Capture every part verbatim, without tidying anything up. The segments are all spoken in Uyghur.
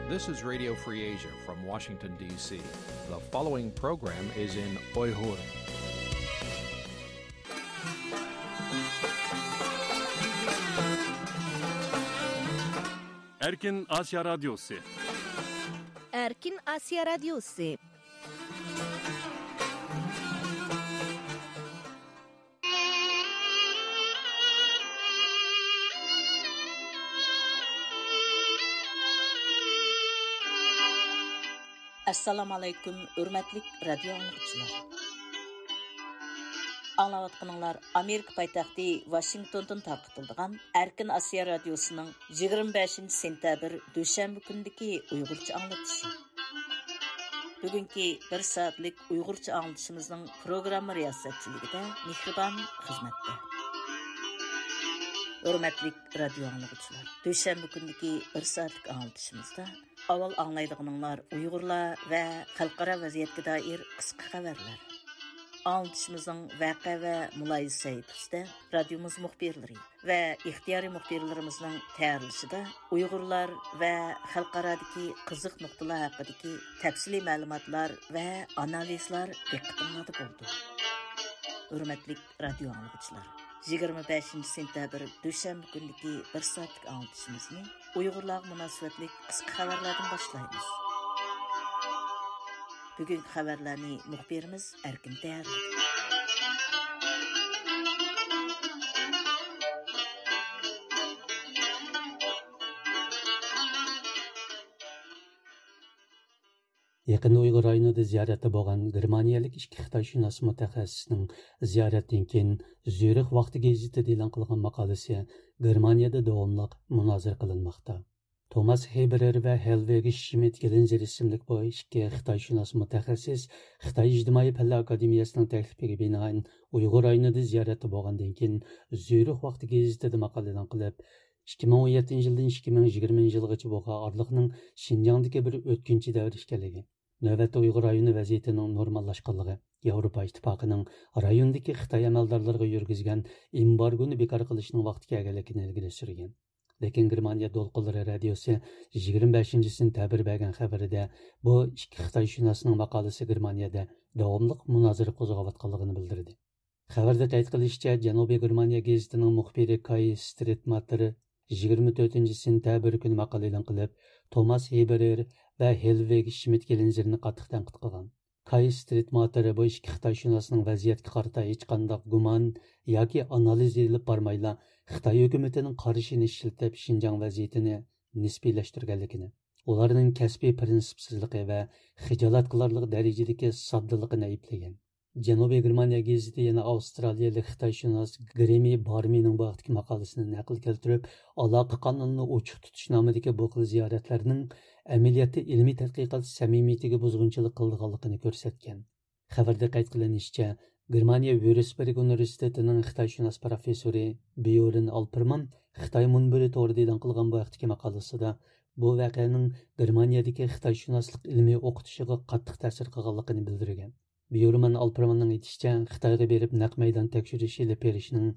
This is Radio Free Asia from Washington, D C. The following program is in Uyghur. Erkin Asya Radyosu. Erkin Asya Radyosu. ئەسسالامۇ ئەلەيكۇم، ھۆرمەتلىك رادىيو ئاڭلىغۇچىلار. ئاڭلاۋاتقىنىڭلار ئامېرىكا پايتەختى ۋاشىنگتوندىن تارقىتىلىدىغان ئەركىن ئاسىيا رادىيوسىنىڭ يىگىرمە بەشىنچى سېنتەبىر دۈشەنبە كۈنىدىكى ئۇيغۇرچە ئاڭلىتىشى. بۈگۈنكى بىر سائەتلىك ئۇيغۇرچە ئاڭلىتىشىمىزنىڭ پروگرامما رىياسەتچىلىكىدە مېھرىبان خىزمەتتە. ھۆرمەتلىك رادىيو ئاڭلىغۇچىلار، دۈشەنبە كۈنىدىكى بىر سائەتلىك ئاڭلىتىشىمىزدا ئاۋۋال ئاڭلايدىغىنىڭلار ئۇيغۇرلار ۋە خەلقئارا ۋەزىيەتكە دائىر قىسقا خەۋەرلەر. ئاڭلىتىشىمىزنىڭ ۋەقە ۋە مۇلاھىزە سەھىپىسىدە رادىيومىز مۇخبىرلىرى ۋە ئىختىيارىي مۇخبىرلىرىمىزنىڭ تەييارلىشىدا ئۇيغۇرلار ۋە خەلقئارادىكى قىزىق نۇقتىلار ھەققىدىكى تەپسىلىي مەلۇماتلار ۋە ئانالىزلار دىققىتىڭلاردا بولىدۇ. ھۆرمەتلىك رادىيو ئاڭلىغۇچىلار، يىگىرمە بەشىنچى سېنتەبىر دۈشەنبە كۈنىدىكى بىر سائەتلىك ئاڭلىتىشىمىزنى ئۇيغۇرلارغا مۇناسىۋەتلىك قىسقا خەۋەرلەردىن باشلايمىز. بۈگۈنكى خەۋەرلەرنى مۇخبىرىمىز ئەركىن تەييارلىدى. يېقىندا ئۇيغۇر رايونىدا زىيارەتتە بولغان گېرمانىيەلىك ئىككى خىتايشۇناس مۇتەخەسسىسنىڭ زىيارەتتىن كېيىن زۈرىخ ۋاقتى گېزىتىدە ئېلان قىلغان ماقالىسى گېرمانىيەدە داۋاملىق مۇنازىرە قىلىنماقتا. توماس ھېبېرېر ۋە ھېلۋېگ شمىت گېلىنزېر ئىسىملىك بۇ ئىككى خىتايشۇناس مۇتەخەسسىس خىتاي ئىجتىمائىي پەنلەر ئاكادېمىيەسىنىڭ تەكلىپىگە بىنائەن ئۇيغۇر رايونىدا زىيارەتتە بولغاندىن كېيىن، زۈرىخ ۋاقتى گېزىتىدە ماقالە ئېلان قىلىپ، ئىككى مىڭ ئون يەتتىنچى يىلدىن ئىككى مىڭ يىگىرمىنچى يىلغىچە بولغان ئارىلىقنىڭ شىنجاڭدىكى بىر ئۆتكۈنچى دەۋر ئىكەنلىكى، نۆۋەتتە ئۇيغۇر رايونى ۋەزىيىتىنىڭ نورماللاشقانلىقى، ياۋروپا ئىتتىپاقىنىڭ رايوندىكى خىتاي ئەمەلدارلىرىغا يۈرگۈزگەن ئېمبارگونى بىكار قىلىشنىڭ ۋاقتى كەلگەنلىكىنى ئىلگىرى سۈرگەن. لېكىن گېرمانىيە دولقۇنلىرى رادىيوسى يىگىرمە بەشىنچى سېنتەبىر بەرگەن خەۋىرىدە بۇ ئىككى خىتايشۇناسنىڭ ماقالىسى گېرمانىيەدە داۋاملىق مۇنازىرە قوزغاۋاتقانلىقىنى بىلدۈردى. خەۋەردە قەيت قىلىشىچە، جەنۇبىي گېرمانىيە گېزىتىنىڭ مۇخبىرى كاي سترىتماتېر يىگىرمە تۆتىنچى سېنتەبىر كۈنى ماقالە ئېلان قىلىپ، توماس ھېبېرېر ۋە ھېلۋېگ شمىت گېلىنزېرنى قاتتىق تەنقىد قىلغان. كاي سترىتماتېر بۇ ئىككى خىتايشۇناسنىڭ ۋەزىيەتكە قارىتا ھېچقانداق گۇمان ياكى ئانالىز ئېلىپ بارمايلا، خىتاي ھۆكۈمىتىنىڭ قارىشىنى ئىشلىتىپ، شىنجاڭ ۋەزىيىتىنى نىسپىيلەشتۈرگەنلىكىنى، ئۇلارنىڭ كەسپىي پىرىنسىپسىزلىقى ۋە خىجالەت قىلارلىق دەرىجىدىكى ساددىلىقىنى ئەيىبلىگەن. جەنۇبىي گېرمانىيە گېزىتى يەنە ئاۋسترالىيەلىك خىتايشۇناس گرېمى بارمىنىڭ بۇ ھەقتىكى ماقالىسىنى نەقىل كەلتۈرۈپ، ئالاقە قانىلىنى ئوچۇق تۇتۇش نامىدىكى بۇ خىل زىيارەتلەرنىڭ ئەمەلىيەتتە ئىلمىي تەتقىقات سەمىمىيىتىگە بۇزغۇنچىلىق قىلىدىغانلىقىنى كۆرسەتكەن. خەۋەردە قەيت قىلىنىشىچە، گېرمانىيە ۋيۇرسبېرگ ئۇنىۋېرسىتېتىنىڭ خىتايشۇناس پروفېسسورى بيورن ئالپېرمان خىتاي مۇنبىرى تورىدا ئېلان قىلغان بۇ ھەقتىكى ماقالىسىدا، بۇ ۋەقەنىڭ گېرمانىيەدىكى خىتايشۇناسلىق ئىلمىي ئوقۇتۇشىغا قاتتىق تەسىر قىلغانلىقىنى بىلدۈرگەن. بيورمان ئالپېرماننىڭ ئېيتىشىچە، خىتايغا بېرىپ نەق مەيدان تەكشۈرۈش ئېلىپ بېرىشنىڭ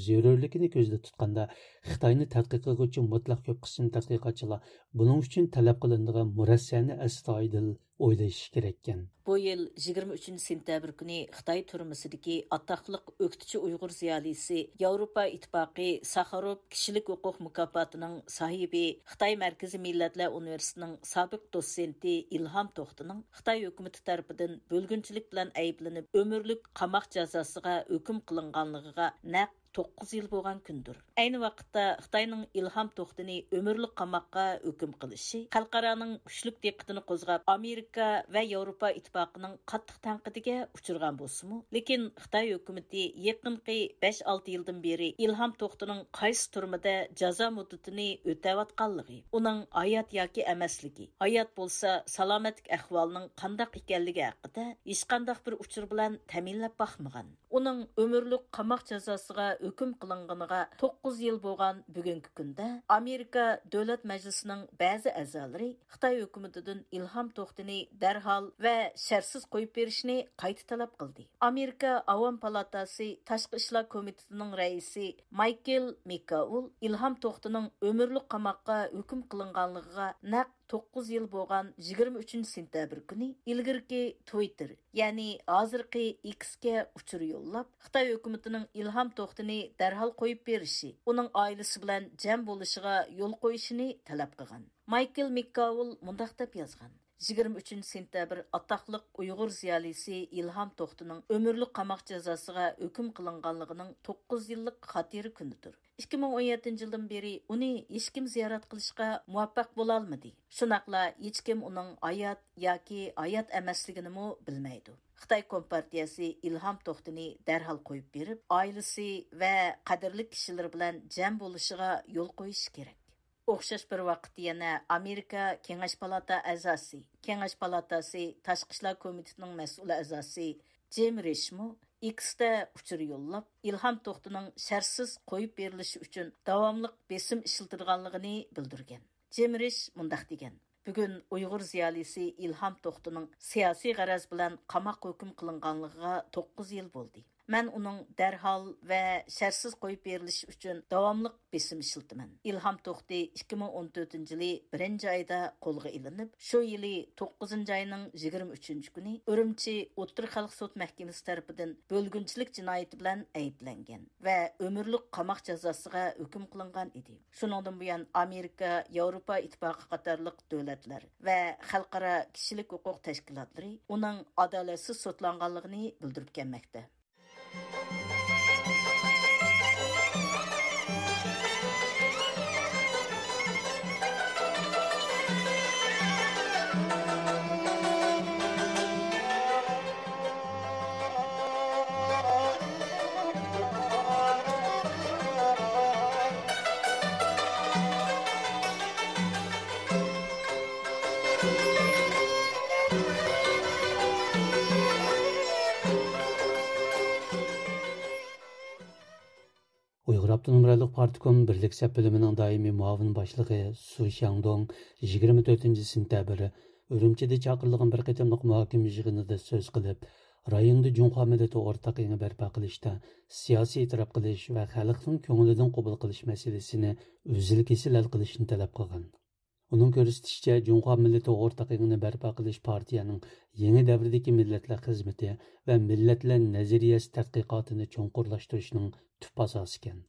زۆرۈرلۈكىنى كۆزدە تۇتقاندا، خىتاينى تەتقىق قىلغۇچى مۇتلەق كۆپ قىسىم تەتقىقاتچىلار بۇنىڭ ئۈچۈن تەلەپ قىلىنىدىغان مۇرەسسەنى ئەستايىدىل ئويلىشىشى كېرەككەن. بۇ يىل يىگىرمە ئۈچىنچى سېنتەبىر كۈنى خىتاي تۈرمىسىدىكى ئاتاقلىق ئۆكتىچى ئۇيغۇر زىيالىيسى، ياۋروپا ئىتتىپاقى ساخاروف كىشىلىك ھوقۇق مۇكاپاتىنىڭ ساھىبى، خىتاي مەركىزىي مىللەتلەر ئۇنىۋېرسىتېتىنىڭ سابىق دوتسېنتى ئىلھام توختىنىڭ خىتاي ھۆكۈمىتى تەرىپىدىن بۆلگۈنچىلىك بىلەن ئەيىبلىنىپ، ئۆمۈرلۈك قاماق جازاسىغا ھۆكۈم قىلىنغانلىقىغا نەق توققۇز يىل بولغان كۈندۇر. ئەينى ۋاقىتتا خىتاينىڭ ئىلھام توختىنى ئۆمۈرلۈك قاماققا ھۆكۈم قىلىشى خەلقئارانىڭ كۈچلۈك دىققىتىنى قوزغاپ، ئامېرىكا ۋە ياۋروپا ئىتتىپاقىنىڭ قاتتىق تەنقىدىگە ئۇچرىغان بولسىمۇ، لېكىن خىتاي ھۆكۈمىتى يېقىنقى بەش-ئالتە يىلدىن بېرى ئىلھام توختىنىڭ قايسى تۈرمىدە جازا مۇددىتىنى ئۆتەۋاتقانلىقى، ئۇنىڭ ھايات ياكى ئەمەسلىكى، ھايات بولسا سالامەتلىك ئەھۋالىنىڭ قانداق ئىكەنلىكى ھەققىدە ھېچقانداق بىر ئۇچۇر بىلەن تەمىنلەپ باقمىغان. ئۇنىڭ ئۆمۈرلۈك قاماق جازاسىغا ھۆكۈم قىلىنغىنىغا توققۇز يىل بولغان بۈگۈنكى كۈندە، ئامېرىكا دۆلەت مەجلىسىنىڭ بەزى ئەزالىرى خىتاي ھۆكۈمىتىدىن ئىلھام توختىنى دەرھال ۋە شەرتسىز قويۇپ بېرىشنى قايتا تەلەپ قىلدى. ئامېرىكا ئاۋام پالاتاسى تاشقى ئىشلار كومىتېتىنىڭ رەئىسى مايكېل مېككاۋل ئىلھام توختىنىڭ ئۆمۈرلۈك قاماققا ھۆكۈم قىلىنغانلىقىغا نەق توققۇز يىل بولغان يىگىرمە ئۈچىنچى سېنتەبىر كۈنى ئىلگىرىكى تۋىتتېر، يەنى ھازىرقى ئېكسكە ئۇچۇر يوللاپ، خىتاي ھۆكۈمىتىنىڭ ئىلھام توختىنى دەرھال قويۇپ بېرىشى، ئۇنىڭ ئائىلىسى بىلەن جەم بولۇشىغا يول قويۇشىنى تەلەپ قىلغان. مايكل مىككاۋىل مۇنداق دەپ يازغان: يىگىرمە ئۈچىنچى سېنتەبىر ئاتاقلىق ئۇيغۇر زىيالىيسى ئىلھام توختىنىڭ ئۆمۈرلۈك قاماق جازاسىغا ھۆكۈم قىلىنغانلىقىنىڭ توققۇز يىللىق خاتىرە كۈنىدۇر. ئىككى مىڭ ئون يەتتىنچى يىلدىن بېرى ئۇنى ھېچكىم زىيارەت قىلىشقا مۇۋەپپەق بولالمىدى. شۇنداقلا ھېچكىم ئۇنىڭ ھايات ياكى ھايات ئەمەسلىكىنىمۇ بىلمەيدۇ. خىتاي كومپارتىيەسى ئىلھام توختىنى دەرھال قويۇپ بېرىپ، ئائىلىسى ۋە قەدىرلىك كىشىلىرى بىلەن جەم بولۇشىغا يول قويۇشى كېرەك. ئوخشاش بىر ۋاقىتتا يەنە ئامېرىكا كېڭەش پالاتا ئەزاسى، كېڭەش پالاتاسى تاشقى ئىشلار كومىتېتىنىڭ مەسئۇل ئەزاسى جىم رىشمۇ ئېكستا ئۇچۇر يوللاپ، ئىلھام توختىنىڭ شەرتسىز قويۇپ بېرىلىشى ئۈچۈن داۋاملىق بېسىم ئىشلىتىدىغانلىقىنى بىلدۈرگەن. جىم رىش مۇنداق دېگەن: بۈگۈن ئۇيغۇر زىيالىيسى ئىلھام توختىنىڭ سىياسىي غەرەز بىلەن قاماققا ھۆكۈم قىلىنغانلىقىغا توققۇز يىل بولدى. مەن ئۇنىڭ دەرھال ۋە شەرتسىز قويۇپ بېرىلىشى ئۈچۈن داۋاملىق بېسىم ئىشلىتىمەن. ئىلھام توختى ئىككى مىڭ ئون تۆتىنچى يىلى بىرىنچى ئايدا قولغا ئېلىنىپ، شۇ يىلى توققۇزىنچى ئاينىڭ يىگىرمە ئۈچىنچى كۈنى ئۈرۈمچى ئوتتۇرا خەلق سوت مەھكىمىسى تەرىپىدىن بۆلگۈنچىلىك جىنايىتى بىلەن ئەيىبلەنگەن ۋە ئۆمۈرلۈك قاماق جازاسىغا ھۆكۈم قىلىنغان ئىدى. شۇنىڭدىن بۇيان، ئامېرىكا، ياۋروپا ئىتتىپاقى قاتارلىق دۆلەتلەر ۋە خەلقئارا كىشىلىك ھوقۇق تەشكىلاتلىرى ئۇنىڭ ئادالەتسىز سوتلانغانلىقىنى بىلدۈرۈپ كەلمەكتە. ئۇيغۇر ئاپتونوم رايونلۇق پارتكوم بىرلىك سەپ بۆلۈمىنىڭ دائىمىي مۇئاۋىن باشلىقى سۇ شياڭدوڭ يىگىرمە تۆتىنچى سېنتەبىر ئۈرۈمچىدە چاقىرىلغان بىر قېتىملىق مۇھاكىمە يىغىنىدا سۆز قىلىپ، رايوندا جۇڭخۇا مىللىتى ئورتاق ئېڭى بەرپا قىلىشتا سىياسىي ئېتىراپ قىلىش ۋە خەلقنىڭ كۆڭلىدىن قوبۇل قىلىش مەسىلىسىنى ئۈزۈل-كېسىل ھەل قىلىشنى تەلەپ قىلغان. ئۇنىڭ كۆرسىتىشىچە، جۇڭخۇا مىللىتى ئورتاق ئېڭىنى بەرپا قىلىش پارتىيەنىڭ يېڭى دەۋردىكى مىللەتلەر خىزمىتى ۋە مىللەتلەر نەزەرىيەسى تەتقىقاتىنى چوڭقۇرلاشتۇرۇشنىڭ تۈپ ئاساسى ئىكەن.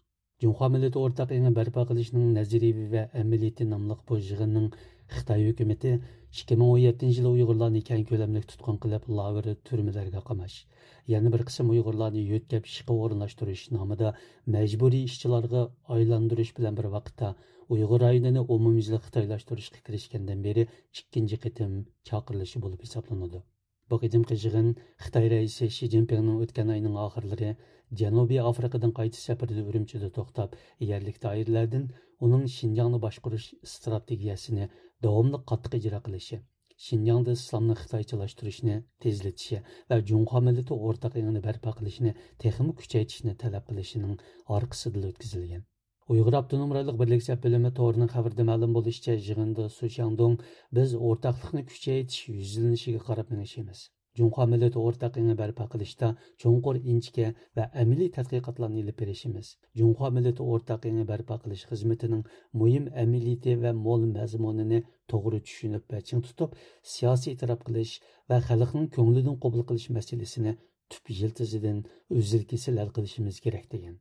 جۇڭخۇا مىللىتى ئورتاق ئېڭى بەرپا قىلىشنىڭ نەزەرىيىۋى ۋە ئەمەلىيىتى ناملىق بۇ يىغىننىڭ خىتاي ھۆكۈمىتى ئىككى مىڭ ئون يەتتىنچى يىلى ئۇيغۇرلارنى كەڭ كۆلەملىك تۇتقۇن قىلىپ، لاگېر، تۈرمىلەرگە قاماش، يەنە بىر قىسىم ئۇيغۇرلارنى يۆتكەپ ئىشقا ئورۇنلاشتۇرۇش نامىدا مەجبۇرىي ئىشچىلارغا ئايلاندۇرۇش بىلەن بىر ۋاقىتتا، ئۇيغۇر رايونىنى ئومۇميۈزلۈك خىتايلاشتۇرۇشقا كىرىشكەندىن بېرى ئىككىنچى قېتىم چاقىرىلىشى بولۇپ ھېسابلىنىدۇ. بۇ قېتىمقى يىغىن خىتاي رەئىسى شى جىنپىڭنىڭ ئۆتكەن ئاينىڭ ئاخىرلىرى جەنۇبىي ئافرىقىدىن قايتىش سەپىرىدە ئۈرۈمچىدە توختاپ، يەرلىك دائىرىلەردىن ئۇنىڭ شىنجاڭنى باشقۇرۇش ئىستراتېگىيەسىنى داۋاملىق قاتتىق ئىجرا قىلىشى، شىنجاڭدا ئىسلامنى خىتايچىلاشتۇرۇشنى تېزلىتىشى ۋە جۇڭخۇا مىللىتى ئورتاق ئېڭىنى بەرپا قىلىشنى تېخىمۇ كۈچەيتىشنى تەلەپ قىلىشىنىڭ ئارقىسىدىلا ئۆتكۈزۈلگەن. ئۇيغۇر ئاپتونوم رايونلۇق بىرلىك سەپ بۆلۈمى تورىنىڭ خەۋىرىدە مەلۇم بولۇشىچە، يىغىندا سۇ شياڭدۇڭ: «بىز ئورتاقلىقنى كۈچەيتىش يۈزلىنىشىگە قاراپ مېڭىشىمىز. جۇڭخۇا مىللىتى ئورتاق ئېڭى بەرپا قىلىشتا چوڭقۇر، ئىنچىكە ۋە ئەمەلىي تەتقىقاتلارنى ئېلىپ بېرىشىمىز. جۇڭخۇا مىللىتى ئورتاق ئېڭى بەرپا قىلىش خىزمىتىنىڭ مۇھىم ئەمەلىيىتى ۋە مول مەزمۇنىنى توغرا چۈشىنىپ ۋە چىڭ تۇتۇپ، سىياسىي ئېتىراپ قىلىش ۋە خەلقنىڭ كۆڭلىدىن قوبۇل قىلىش مەسىلىسىنى تۈپ يىلتىزىدىن ئۈزۈل-كېسىل ھەل قىلىشىمىز كېرەك» دېگەن.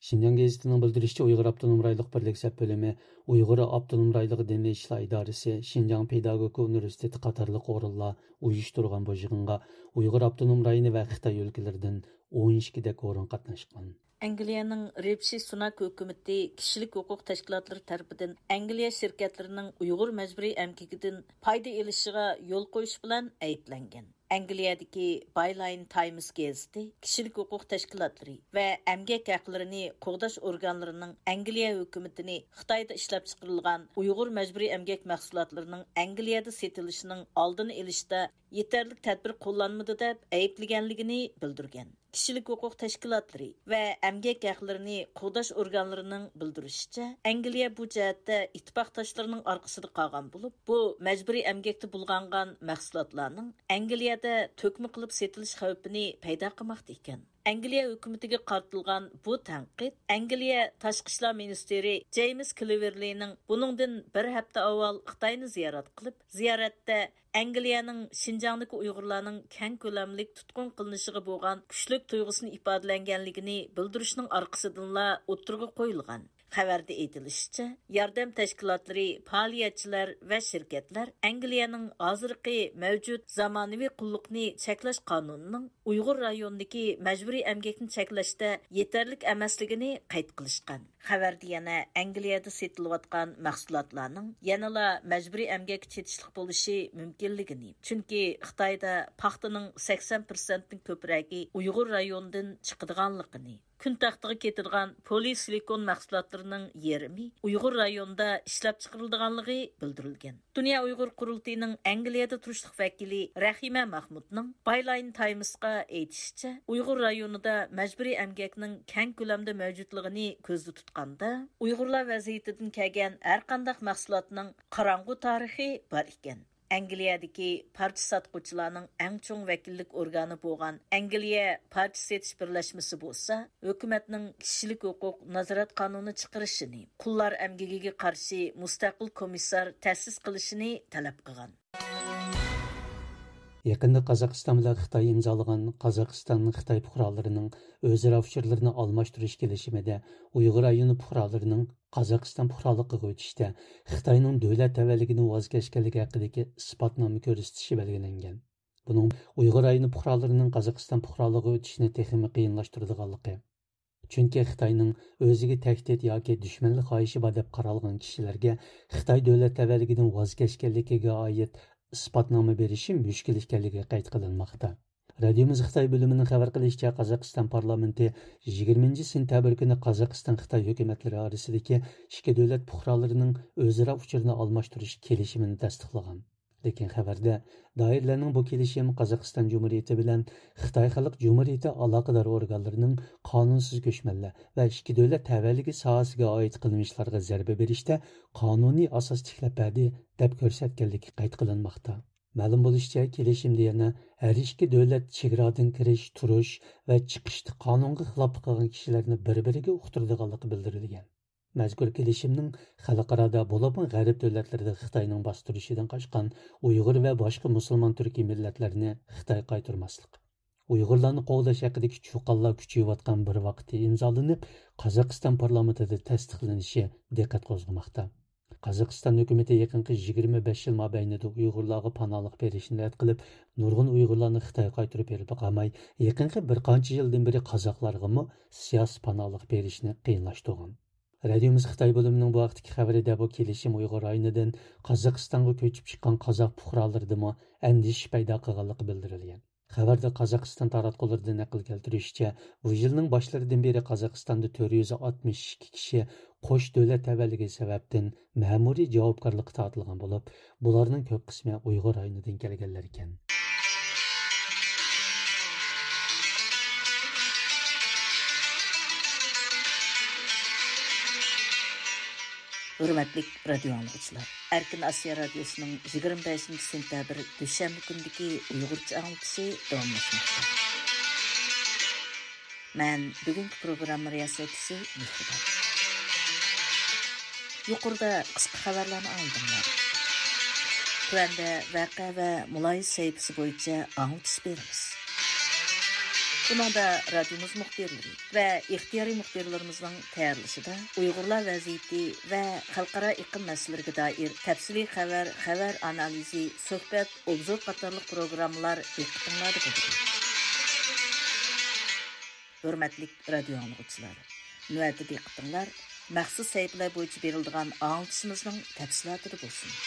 شىنجاڭ گېزىتىنىڭ بىلدۈرۈشىچە، ئۇيغۇر ئاپتونوم رايونلۇق بىرلىك سەپ بۆلۈمى ئۇيغۇر ئاپتونوم رايونلۇق دىنىي ئىشلار ئىدارىسى، شىنجاڭ پېداگوگىكا ئۇنىۋېرسىتېتى قاتارلىق ئورۇنلار ئۇيۇشتۇرغان بۇ يىغىنغا ئۇيغۇر ئاپتونوم رايونى ۋە خىتاي ئۆلكىلىرىدىن ئون ئىككىدەك ئورۇن قاتناشقان. ئەنگلىيەنىڭ رىشى سۇناك ھۆكۈمىتى كىشىلىك ھوقۇق تەشكىلاتلىرى تەرىپىدىن ئەنگلىيە شىركەتلىرىنىڭ ئۇيغۇر مەجبۇرىي ئەمگىكىدىن پايدا ئېلىشىغا يول قويۇش بىلەن ئەيىبلەنگەن. ئەنگلىيەدىكى بايلاين تايمس گېزىتى كىشىلىك ھوقۇق تەشكىلاتلىرى ۋە ئەمگەك ھەقلىرىنى قوغداش ئورگانلىرىنىڭ ئەنگلىيە ھۆكۈمىتىنى خىتايدا ئىشلەپچىقىرىلغان ئۇيغۇر مەجبۇرىي ئەمگەك مەھسۇلاتلىرىنىڭ ئەنگلىيەدە سېتىلىشىنىڭ ئالدىنى ئېلىشتا يېتەرلىك تەدبىر قوللانمىدى دەپ ئەيىبلىگەنلىكىنى بىلدۈرگەن. كىشىلىك ھوقۇق تەشكىلاتلىرى ۋە ئەمگەك ھەقلىرىنى قوغداش ئورگانلىرىنىڭ بىلدۈرۈشىچە، ئەنگلىيە بۇ جەھەتتە ئىتتىپاقداشلىرىنىڭ ئارقىسىدا قالغان بولۇپ، بۇ مەجبۇرىي ئەمگەكتە بۇلغانغان مەھسۇلاتلارنىڭ ئەنگلىيەدە تۆكمە قىلىپ سېتىلىش خەۋپىنى پەيدا قىلماقتا ئىكەن. ئەنگلىيە ھۆكۈمىتىگە قارىتىلغان بۇ تەنقىد ئەنگلىيە تاشقى ئىشلار مىنىستىرى جېيمس كلېۋېرلىنىڭ بۇنىڭدىن بىر ھەپتە ئاۋۋال خىتاينى زىيارەت قىلىپ، زىيارەتتە ئەنگلىيەنىڭ شىنجاڭدىكى ئۇيغۇرلارنىڭ كەڭ كۆلەملىك تۇتقۇن قىلىنىشىغا بولغان كۈچلۈك تۇيغۇسىنى ئىپادىلەنگەنلىكىنى بىلدۈرۈشنىڭ ئارقىسىدىنلا ئوتتۇرىغا قويۇلغان. خەۋەردە ئېيتىلىشىچە، ياردەم تەشكىلاتلىرى، پائالىيەتچىلەر ۋە شىركەتلەر ئەنگلىيەنىڭ ھازىرقى مەۋجۇت زامانىۋى قۇللۇقنى چەكلەش قانۇنىنىڭ ئۇيغۇر رايونىدىكى مەجبۇرىي ئەمگەكنى چەكلەشتە يېتەرلىك ئەمەسلىكىنى قەيت قىلىشقان. خەۋەردە يەنە ئەنگلىيەدە سېتىلىۋاتقان مەھسۇلاتلارنىڭ يەنىلا مەجبۇرىي ئەمگەككە چېتىشلىق بولۇشى مۇمكىنلىكىنى، چۈنكى خىتايدا پاختىنىڭ سەكسەن پىرسەنتتىن كۆپرەكى ئۇيغۇر رايونىدىن چىقىدىغانلىقىنى، كۈن تەختىگە كېتىدىغان پولىئېستېرون مەھسۇلاتلىرىنىڭ يېرىمى ئۇيغۇر رايونىدا ئىشلەپچىقىرىلىدىغانلىقى بىلدۈرۈلگەن. دۇنيا ئۇيغۇر قۇرۇلتىيىنىڭ ئەنگلىيەدە تۇرۇشلۇق ۋەكىلى رەھىمە مەھمۇتنىڭ بايلاين تايمسقا ئېيتىشىچە، ئۇيغۇر رايونىدا مەجبۇرىي ئەمگەكنىڭ كەڭ كۆلەمدە مەۋجۇتلۇقىنى كۆزدە تۇتقاندا، ئۇيغۇرلار ۋەزىيىتىدىن كەلگەن ھەرقانداق مەھسۇلاتنىڭ قاراڭغۇ تارىخى بار ئىكەن. ئەنگلىيەدىكى پارچە ساتقۇچىلارنىڭ ئەڭ چوڭ ۋەكىللىك ئورگانى بولغان ئەنگلىيە پارچە سېتىش بىرلەشمىسى بولسا، ھۆكۈمەتنىڭ كىشىلىك ھوقۇق نازارەت قانۇنى چىقىرىشىنى، قۇللار ئەمگىكىگە قارشى مۇستەقىل كومىسسار تەسىس قىلىشىنى تەلەپ قىلغان. يېقىندا قازاقىستان بىلەن خىتاي ئىمزالىغان قازاقىستان خىتاي پۇقرالىرىنىڭ ئۆزئارا ئۇچۇرلىرىنى ئالماشتۇرۇش كېلىشىمىدە ئۇيغۇر رايونى پۇقرالىرىنىڭ قازاقىستان پۇقرالىقىغا ئۆتۈشتە خىتاينىڭ دۆلەت تەۋەلىكىدىن ۋاز كەچكەنلىكى ھەققىدىكى ئىسپاتنامە كۆرسىتىشى بەلگىلەنگەن. بۇنىڭ ئۇيغۇر رايونى پۇقرالىرىنىڭ قازاقىستان پۇقرالىقىغا ئۆتۈشىنى تېخىمۇ قىيىنلاشتۇرىدىغانلىقى، چۈنكى خىتاينىڭ ئۆزىگە تەھدىت ياكى دۈشمەنلىك خاھىشى بار دەپ قارالغان كىشىلەرگە خىتاي دۆلەت تەۋەلىكىدىن ۋاز كەچكەنلىكىگە ئائىت ئىسپاتنامە بېرىشى مۈشكۈل ئىكەنلىكى قەيت قىلىنماقتا. رادىيومىز خىتاي بۆلۈمىنىڭ خەۋەر قىلىشىچە، قازاقىستان پارلامېنتى يىگىرمىنچى سېنتەبىر كۈنى قازاقىستان خىتاي ھۆكۈمەتلىرى ئارىسىدىكى ئىككى دۆلەت پۇقرالىرىنىڭ ئۆزئارا ئۇچۇرىنى ئالماشتۇرۇش كېلىشىمىنى تەستىقلىغان. لېكىن خەۋەردە، دائىرىلەرنىڭ بۇ كېلىشىم قازاقىستان جۇمھۇرىيىتى بىلەن خىتاي خەلق جۇمھۇرىيىتى ئالاقىدار ئورگانلىرىنىڭ قانۇنسىز كۆچمەنلەر ۋە ئىككى دۆلەت تەۋەلىكى ساھەسىگە ئائىت قىلمىشلارغا زەربە بېرىشتە قانۇنىي ئاساس تىكلەپ بەردى، دەپ كۆرسەتكەنلىكى قەيت قىلىنماقتا. مەلۇم بولۇشىچە، كېلىشىمدە يەنە ھەر ئىككى دۆلەت چېگرادىن كىرىش، تۇرۇش ۋە چىقىشتا قانۇنغا خىلاپلىق قىلغان كىشىلەرنى بىر-بىرىگە ئۇقتۇرىدىغانلىقى بىلدۈرۈلگەن. مەزكۇر كېلىشىمنىڭ خەلقئارادا، بولۇپمۇ غەرب دۆلەتلىرىدە خىتاينىڭ باستۇرۇشىدىن قاچقان ئۇيغۇر ۋە باشقا مۇسۇلمان تۈركىي مىللەتلەرنى خىتاي قايتۇرماسلىق، ئۇيغۇرلارنى قوغداش ھەققىدىكى چۇقانلار كۈچىيىۋاتقان بىر ۋاقىتتا ئىمزالىنىپ، قازاقىستان پارلامېنتىدا تەستىقلىنىشى دىققەت قوزغىماقتا. قازاقىستان ھۆكۈمىتى يېقىنقى يىگىرمە بەش يىل مابەينىدە ئۇيغۇرلارغا پاناھلىق بېرىشنى رەت قىلىپ، نۇرغۇن ئۇيغۇرلارنى خىتايغا قايتۇرۇپ بېرىپلا قالماي، يېقىنقى بىر قانچە يىلدىن بېرى قازاقلارغىمۇ سىياسىي پاناھلىق بېرىشنى قىيىنلاشتۇرغان. رادىيومىز خىتاي بۆلۈمىنىڭ بۇ ھەقتىكى خەۋىرىدە بۇ كېلىشىم ئۇيغۇر رايونىدىن قازاقىستانغا كۆچۈپ چىققان قازاق پۇقرالىرىدىمۇ ئەندىشە پەيدا قىلغانلىقى بىلدۈرۈلگەن. خەۋەردە قازاقىستان تاراتقۇلىرىدىن نەقىل كەلتۈرۈشىچە، بۇ يىلنىڭ باشلىرىدىن بېرى قازاقىستاندا تۆت يۈز ئاتمىش ئىككى كىشى قوش دۆلەت تەۋەلىكى سەۋەبتىن مەمۇرىي جاۋابكارلىققا تارتىلغان بولۇپ، بۇلارنىڭ كۆپ قىسمى ئۇيغۇر رايونىدىن كەلگەنلەر ئىكەن. ھۆرمەتلىك رادىيو ئاڭلىغۇچىلار، ئەركىن ئاسىيا رادىيوسىنىڭ يىگىرمە بەشىنچى سېنتەبىر دۈشەنبە كۈنىدىكى ئۇيغۇرچە ئاڭلىتىشى داۋاملاشماقتا. مەن بۈگۈنكى پروگرامما رىياسەتچىسى مېھرىبان. يۇقىرىدا قىسقا خەۋەرلەرنى ئاڭلىدىڭلار. تۆۋەندە ۋەقە ۋە مۇلاھىزە سەھىپىسى بويىچە ئاڭلىتىش بېرىمىز. بۇنىڭدا رادىيومىز مۇخبىرلىرى ۋە ئىختىيارىي مۇخبىرلىرىمىزنىڭ تەييارلىشىدا ئۇيغۇرلار ۋەزىيىتى ۋە خەلقئارا ئېقىم مەسىلىلىرىگە دائىر تەپسىلىي خەۋەر، خەۋەر ئانالىزى، سۆھبەت، ئوبزور قاتارلىق پروگراممىلار دىققىتىڭلاردا بولىدۇ. ھۆرمەتلىك رادىيو ئاڭلىغۇچىلار، نۆۋەتتە دىققىتىڭلار مەخسۇس سەھىپىلەر بويىچە بېرىلىدىغان ئاڭلىتىشىمىزنىڭ تەپسىلاتىدا بولسۇن.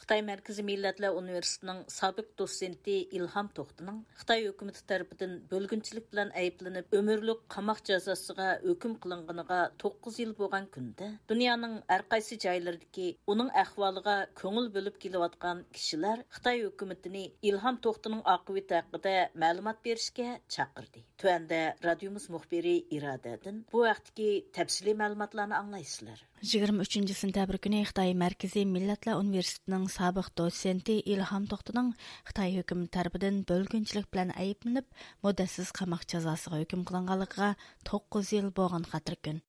خىتاي مەركىزىي مىللەتلەر ئۇنىۋېرسىتېتىنىڭ سابىق دوتسېنتى ئىلھام توختىنىڭ خىتاي ھۆكۈمىتى تەرىپىدىن بۆلگۈنچىلىك بىلەن ئەيىبلىنىپ، ئۆمۈرلۈك قاماق جازاسىغا ھۆكۈم قىلىنغىنىغا توققۇز يىل بولغان كۈندە، دۇنيانىڭ ھەر قايسى جايلىرىدىكى ئۇنىڭ ئەھۋالىغا كۆڭۈل بۆلۈپ كېلىۋاتقان كىشىلەر خىتاي ھۆكۈمىتىنى ئىلھام توختىنىڭ ئاقىۋىتى ھەققىدە مەلۇمات بېرىشكە چاقىردى. تۆۋەندە رادىيومىز مۇخبىرى ئىرادەدىن بۇ ھەقتىكى تەپسىلىي مەلۇماتلارنى ئاڭلايسىلەر. يىگىرمە ئۈچىنچى سېنتەبىر كۈنى خىتاي مەركىزىي مىللەتلەر ئۇنىۋېرسىتېتىنىڭ سابىق دوتسېنتى ئىلھام توختىنىڭ خىتاي ھۆكۈمىتى تەرىپىدىن بۆلگۈنچىلىك بىلەن ئەيىبلىنىپ، مۇددەتسىز قاماق جازاسىغا ھۆكۈم قىلىنغانلىقىغا توققۇز يىل بولغان خاتىرىكۈن.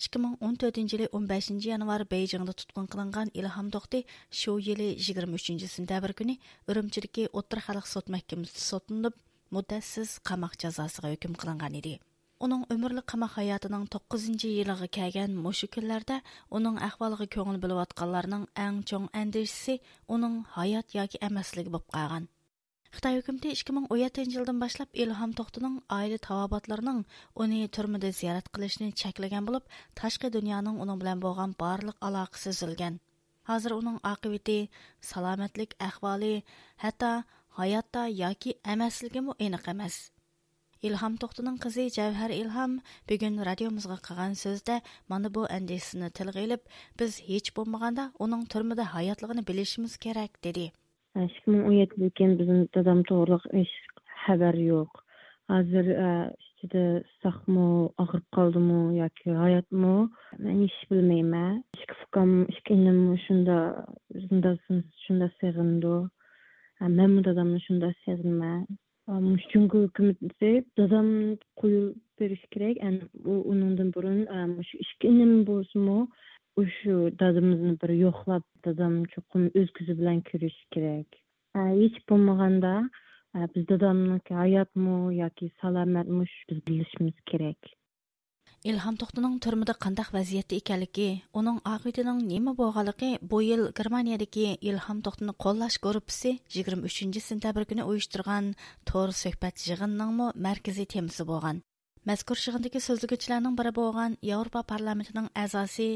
ئىككى مىڭ ئون تۆتىنچى يىلى ئون بەشىنچى يانۋار بېيجىڭدا تۇتقۇن قىلىنغان ئىلھام توختى شۇ يىلى يىگىرمە ئۈچىنچى سېنتەبىر كۈنى ئۈرۈمچىدىكى ئوتتۇرا خەلق سوت مەھكىمىسىدە سوتلىنىپ، مۇددەتسىز قاماق جازاسىغا ھۆكۈم قىلىنغان ئىدى. ئۇنىڭ ئۆمۈرلۈك قاماق ھاياتىنىڭ توققۇزىنچى يىلىغا كەلگەن مۇشۇ كۈنلەردە ئۇنىڭ ئەھۋالىغا كۆڭۈل بۆلۈۋاتقانلارنىڭ ئەڭ چوڭ ئەندىشىسى ئۇنىڭ ھايات ياكى ئەمەسلىكى بولۇپ قالغان. خىتاي ھۆكۈمىتى ئىككى مىڭ ئون يەتتىنچى يىلدىن باشلاپ ئىلھام توختىنىڭ ئائىلە تاۋابىئاتلىرىنىڭ ئۇنى تۈرمىدە زىيارەت قىلىشىنى چەكلىگەن بولۇپ، تاشقى دۇنيانىڭ ئۇنىڭ بىلەن بولغان بارلىق ئالاقىسى ئۈزۈلگەن. ھازىر ئۇنىڭ ئاقىۋىتى، سالامەتلىك ئەھۋالى، ھەتتا ھاياتتا ياكى ئەمەسلىكىمۇ ئېنىق ئەمەس. ئىلھام توختىنىڭ قىزى جەۋھەر ئىلھام بۈگۈن رادىيومىزغا قىلغان سۆزىدە مانا بۇ ئەندىشىسىنى تىلغا ئېلىپ، بىز ھېچ بولمىغاندا ئۇنىڭ تۈرمىدە ھاياتلىقىنى بىلىشىمىز كېرەك، دېدى. ئىككى مىڭ ئون يەتتىدىن كېيىن بىزنىڭ دادام توغرىلىق ھېچ خەۋەر يوق. ھازىر، ئە، ئىچىدە ساقمۇ، ئاغرىپ قالدىمۇ ياكى ھاياتمۇ، مەن ھېچ بىلمەيمەن. ئىككى ئۇكام، ئىككى ئىنىم شۇندا، شۇندا، شۇندا سېغىنىدۇ. ئە، مەنمۇ دادامنى شۇندا سېغىنىمەن. ئە، مۇشۇ جۇڭگو ھۆكۈمىتى دادامنى قويۇپ بېرىشى كېرەك. ئەنە ئۇ، ئۇنىڭدىن بۇرۇن، ئە، مۇشۇ ئىككى ئىنىم بولسىمۇ، ئۇ شۇ دادىمىزنى بىر يوقلاپ، دادام چوقۇم ئۆز كۆزى بىلەن كۆرۈشى كېرەك. ئە، ھېچ بولمىغاندا، ئە، بىز دادامنىڭكى ھاياتمۇ ياكى سالامەتمۇ، شۇ بىز بىلىشىمىز كېرەك. ئىلھام توختىنىڭ تۈرمىدە قانداق ۋەزىيەتتە ئىكەنلىكى، ئۇنىڭ ئاقىۋىتىنىڭ نېمە بولغانلىقى بۇ يىل گېرمانىيەدىكى ئىلھام توختىنى قوللاش گۇرۇپپىسى يىگىرمە ئۈچىنچى سېنتەبىر كۈنى ئۇيۇشتۇرغان تور سۆھبەت يىغىنىنىڭمۇ مەركىزىي تېمىسى بولغان. مەزكۇر يىغىندىكى سۆزلىگۈچىلەرنىڭ بىرى بولغان ياۋروپا پارلامېنتىنىڭ ئەزاسى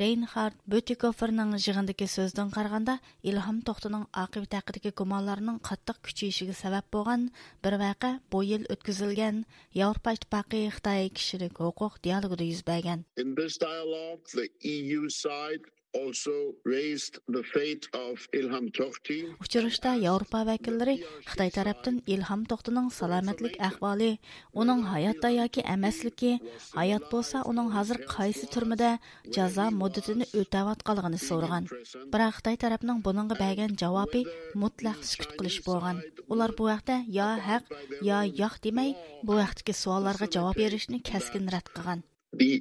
رەينھارد بۈتىكوفېرنىڭ يىغىندىكى سۆزىدىن قارىغاندا، ئىلھام توختىنىڭ ئاقىۋىتى ھەققىدىكى گۇمانلارنىڭ قاتتىق كۈچىيىشىگە سەۋەب بولغان بىر ۋەقە بۇ يىل ئۆتكۈزۈلگەن ياۋروپا ئىتتىپاقى خىتاي كىشىلىك ھوقۇق دىيالوگىدا يۈز بەرگەن. In this dialogue, the E U side also raised the fate of Ilham Tohti. ئۇچرىشىشتا ياۋروپا ۋەكىللىرى خىتاي تەرەپتىن ئىلھام توختىنىڭ سالامەتلىك ئەھۋالى، ئۇنىڭ ھاياتتا ياكى ئەمەسلىكى، ھايات بولسا ئۇنىڭ ھازىر قايسى تۈرمىدە جازا مۇددىتىنى ئۆتەۋاتقانلىقىنى سورىغان. بىراق خىتاي تەرەپنىڭ بۇنىڭغا بەرگەن جاۋابى مۇتلەق سۈكۈت قىلىش بولغان. ئۇلار بۇ ھەقتە يا ھەق، يا ياق دېمەي، بۇ ھەقتىكى سوئاللارغا جاۋاب بېرىشنى كەسكىن رەت قىلغان. The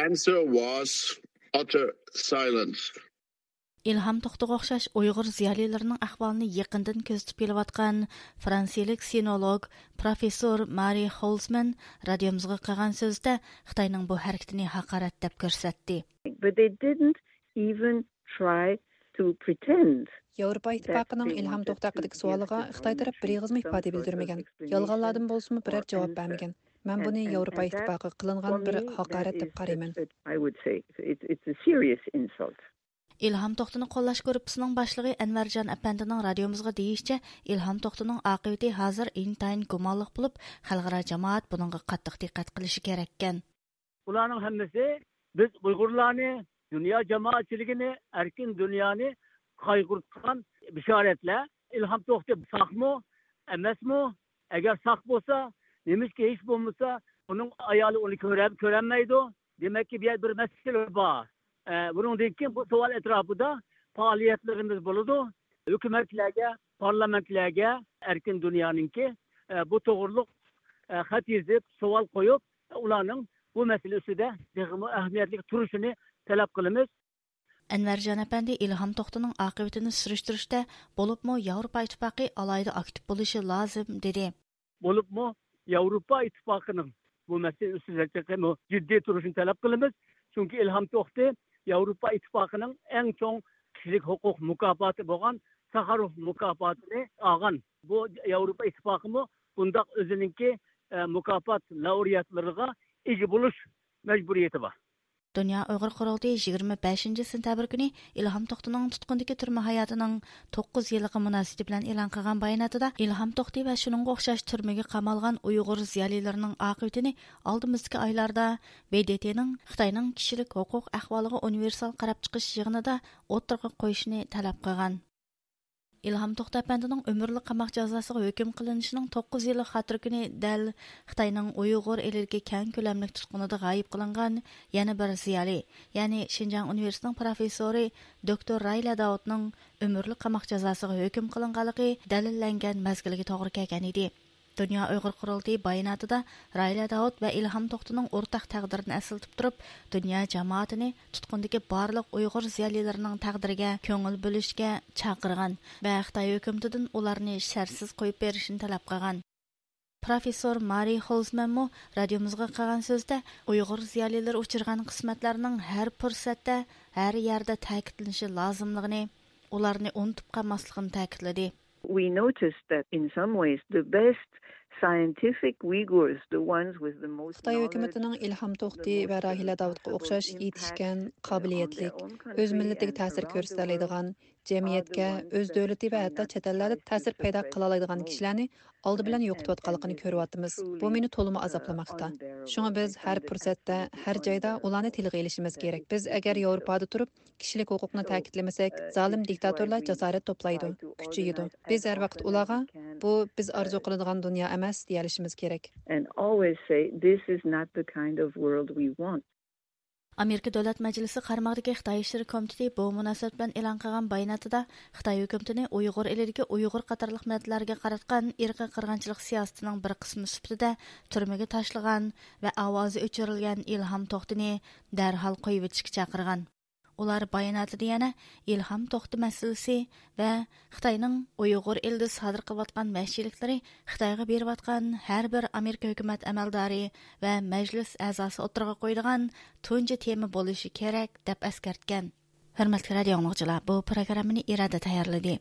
answer was utter silence. ئىلھام توختىغا ئوخشاش ئۇيغۇر زىيالىيلىرىنىڭ ئەھۋالىنى يېقىندىن كۆزىتىپ كېلىۋاتقان فرانسىيىلىك سىنولوگ پروفېسسور مارى خولزمەن رادىيومىزغا قىلغان سۆزىدە خىتاينىڭ بۇ ھەرىكىتىنى ھاقارەت دەپ كۆرسەتتى. But they didn't even try to pretend. ياۋروپا ئىتتىپاقىنىڭ ئىلھام توختى ھەققىدىكى سوئالىغا خىتاي تەرەپ بىر ئېغىزمۇ ئىپادە بىلدۈرمىگەن. يالغانلاردىن بولسىمۇ بىرەر جاۋاب بەرمىگەن. مەن بۇنى ياۋروپا ئىتتىپاقىغا قىلىنغان بىر ھاقارەت دەپ قارايمەن. I would say it's, it's a serious insult. ئىلھام توختىنى قوللاش گۇرۇپپىسىنىڭ باشلىقى ئەنۋەرجان ئەپەندىنىڭ رادىيومىزغا دېيىشىچە، ئىلھام توختىنىڭ ئاقىۋىتى ھازىر ئىنتايىن گۇمانلىق بولۇپ، خەلقئارا جامائەت بۇنىڭغا قاتتىق دىققەت قىلىشى كېرەككەن. بۇلارنىڭ ھەممىسى بىز ئۇيغۇرلارنى، دۇنيا جامائەتچىلىكىنى، ئەركىن دۇنيانى قايغۇرتقان بېشارەتلەر. ئىلھام توختى ساقمۇ، ئەمەسمۇ؟ ئەگەر ساق بولسا، نېمىشقا ھېچ بولمىسا ئۇنىڭ ئايالى ئۇنى كۆرە-، كۆرەلمەيدۇ؟ دېمەككى، بۇ يەردە بىر مەسىلە بار. ئە، بۇنىڭدىن كېيىن بۇ سوئال ئەتراپىدا پائالىيەتلىرىمىز بولىدۇ. ھۆكۈمەتلەرگە، پارلامېنتلەرگە ئەركىن دۇنيانىڭكى، ئە، بۇ توغرۇلۇق، ئە، خەت يېزىپ، سوئال قويۇپ، ئۇلارنىڭ بۇ مەسىلە ئۈستىدە تېخىمۇ ئەھمىيەتلىك تۇرۇشىنى تەلەپ قىلىمىز. ئەنۋەرجان ئەپەندى ئىلھام توختىنىڭ ئاقىۋىتىنى سۈرۈشتۈرۈشتە، بولۇپمۇ ياۋروپا ئىتتىپاقى ئالاھىدە ئاكتىپ بولۇشى لازىم، دېدى. بولۇپمۇ ياۋروپا ئىتتىپاقىنىڭ بۇ مەسىلە ئۈستىدە تېخىمۇ جىددىي تۇرۇشىنى تەلەپ قىلىمىز. چۈنكى ئىلھام توختى ياۋروپا ئىتتىپاقىنىڭ ئەڭ چوڭ كىشىلىك ھوقۇق مۇكاپاتى بولغان ساخاروف مۇكاپاتىنى ئالغان. بۇ ياۋروپا ئىتتىپاقىمۇ بۇنداق ئۆزىنىڭكى، ئە، مۇكاپات لائۇرېئاتلىرىغا ئىگە بولۇش مەجبۇرىيىتى بار. دۇنيا ئۇيغۇر قۇرۇلتىيى يىگىرمە بەشىنچى سېنتەبىر كۈنى ئىلھام توختىنىڭ تۇتقۇندىكى تۈرمە ھاياتىنىڭ توققۇز يىللىقى مۇناسىۋىتى بىلەن ئېلان قىلغان باياناتىدا، ئىلھام توختى ۋە شۇنىڭغا ئوخشاش تۈرمىگە قامالغان ئۇيغۇر زىيالىيلىرىنىڭ ئاقىۋىتىنى ئالدىمىزدىكى ئايلاردا ب د ت نىڭ خىتاينىڭ كىشىلىك ھوقۇق ئەھۋالىغا ئۇنىۋېرسال قاراپ چىقىش يىغىنىدا ئوتتۇرىغا قويۇشىنى تەلەپ قىلغان. ئىلھام توختى ئەپەندىنىڭ ئۆمۈرلۈك قاماق جازاسىغا ھۆكۈم قىلىنىشىنىڭ توققۇز يىللىق خاتىرە كۈنى دەل خىتاينىڭ ئۇيغۇر ئېلىدىكى كەڭ كۆلەملىك تۇتقۇنىدا غايىب قىلىنغان يەنە بىر زىيالىي، يەنى شىنجاڭ ئۇنىۋېرسىتېتىنىڭ پروفېسسورى دوكتور رايلە داۋۇتنىڭ ئۆمۈرلۈك قاماق جازاسىغا ھۆكۈم قىلىنغانلىقى دەلىللەنگەن مەزگىلگە توغرا كەلگەن ئىدى. دۇنيا ئۇيغۇر قۇرۇلتىيى باياناتىدا رايلە داۋۇت ۋە ئىلھام توختىنىڭ ئورتاق تەقدىرىنى ئەسلىتىپ تۇرۇپ، دۇنيا جامائىتىنى تۇتقۇندىكى بارلىق ئۇيغۇر زىيالىيلىرىنىڭ تەقدىرىگە كۆڭۈل بۆلۈشكە چاقىرغان ۋە خىتاي ھۆكۈمىتىدىن ئۇلارنى شەرتسىز قويۇپ بېرىشنى تەلەپ قىلغان. پروفېسسور مارى خولزمەنمۇ رادىيومىزغا قىلغان سۆزىدە، ئۇيغۇر زىيالىيلىرى ئۇچرىغان قىسمەتلەرنىڭ ھەر پۇرسەتتە، ھەر يەردە تەكىتلىنىشى لازىملىقىنى، ئۇلارنى ئۇنتۇپ قالماسلىقىنى تەكىتلىدى. We noticed that in some ways the best scientific Uyghurs, the ones with the most خىتاي knowledge, ھۆكۈمىتىنىڭ ئىلھام توختى ۋە راھىلە داۋۇتقا ئوخشاش يېتىشكەن، قابىلىيەتلىك، ئۆز مىللىتىگە تەسىر كۆرسىتەلەيدىغان، جەمئىيەتكە، ئۆز دۆلىتى ۋە ھەتتا چەت ئەللەردە تەسىر پەيدا قىلالايدىغان كىشىلەرنى ئالدى بىلەن يوقىتىۋاتقانلىقىنى كۆرۈۋاتىمىز. بۇ مېنى تولىمۇ ئازابلىماقتا. شۇڭا بىز ھەر پۇرسەتتە، ھەر جايدا ئۇلارنى تىلغا ئېلىشىمىز كېرەك. بىز ئەگەر ياۋروپادا تۇرۇپ، كىشىلىك ھوقۇقنى تەكىتلىمىسەك، زالىم دىكتاتورلار جاسارەت توپلايدۇ، كۈچىيىدۇ. بىز ھەر ۋاقىت ئۇلارغا، بۇ بىز ئارزۇ قىلىدىغان دۇنيا ئەمەس، دېيەلىشىمىز كېرەك. And always say, this is not the kind of world we want. ئامېرىكا دۆلەت مەجلىسى قارمىقىدىكى خىتاي ئىشلىرى كومىتېتى بۇ مۇناسىۋەت بىلەن ئېلان قىلغان باياناتىدا، خىتاي ھۆكۈمىتىنى ئۇيغۇر ئېلىدىكى ئۇيغۇر قاتارلىق مىللەتلەرگە قاراتقان ئىرقىي قىرغىنچىلىق سىياسىتىنىڭ بىر قىسمى سۈپىتىدە تۈرمىگە تاشلىغان ۋە ئاۋازى ئۆچۈرۈلگەن ئىلھام توختىنى دەرھال قويۇۋېتىشكە چاقىرغان. ئۇلار باياناتىدا يەنە ئىلھام توختى مەسىلىسى ۋە خىتاينىڭ ئۇيغۇر ئېلىدە سادىر قىلىۋاتقان ۋەھشىيلىكلىرى خىتايغا بېرىۋاتقان ھەر بىر ئامېرىكا ھۆكۈمەت ئەمەلدارى ۋە مەجلىس ئەزاسى ئوتتۇرىغا قويىدىغان تۇنجى تېما بولۇشى كېرەك، دەپ ئەسكەرتكەن. ھۆرمەتلىك رادىئو ئاڭلىغۇچىلار، بۇ پروگراممىنى ئىرادە تەييارلىدى.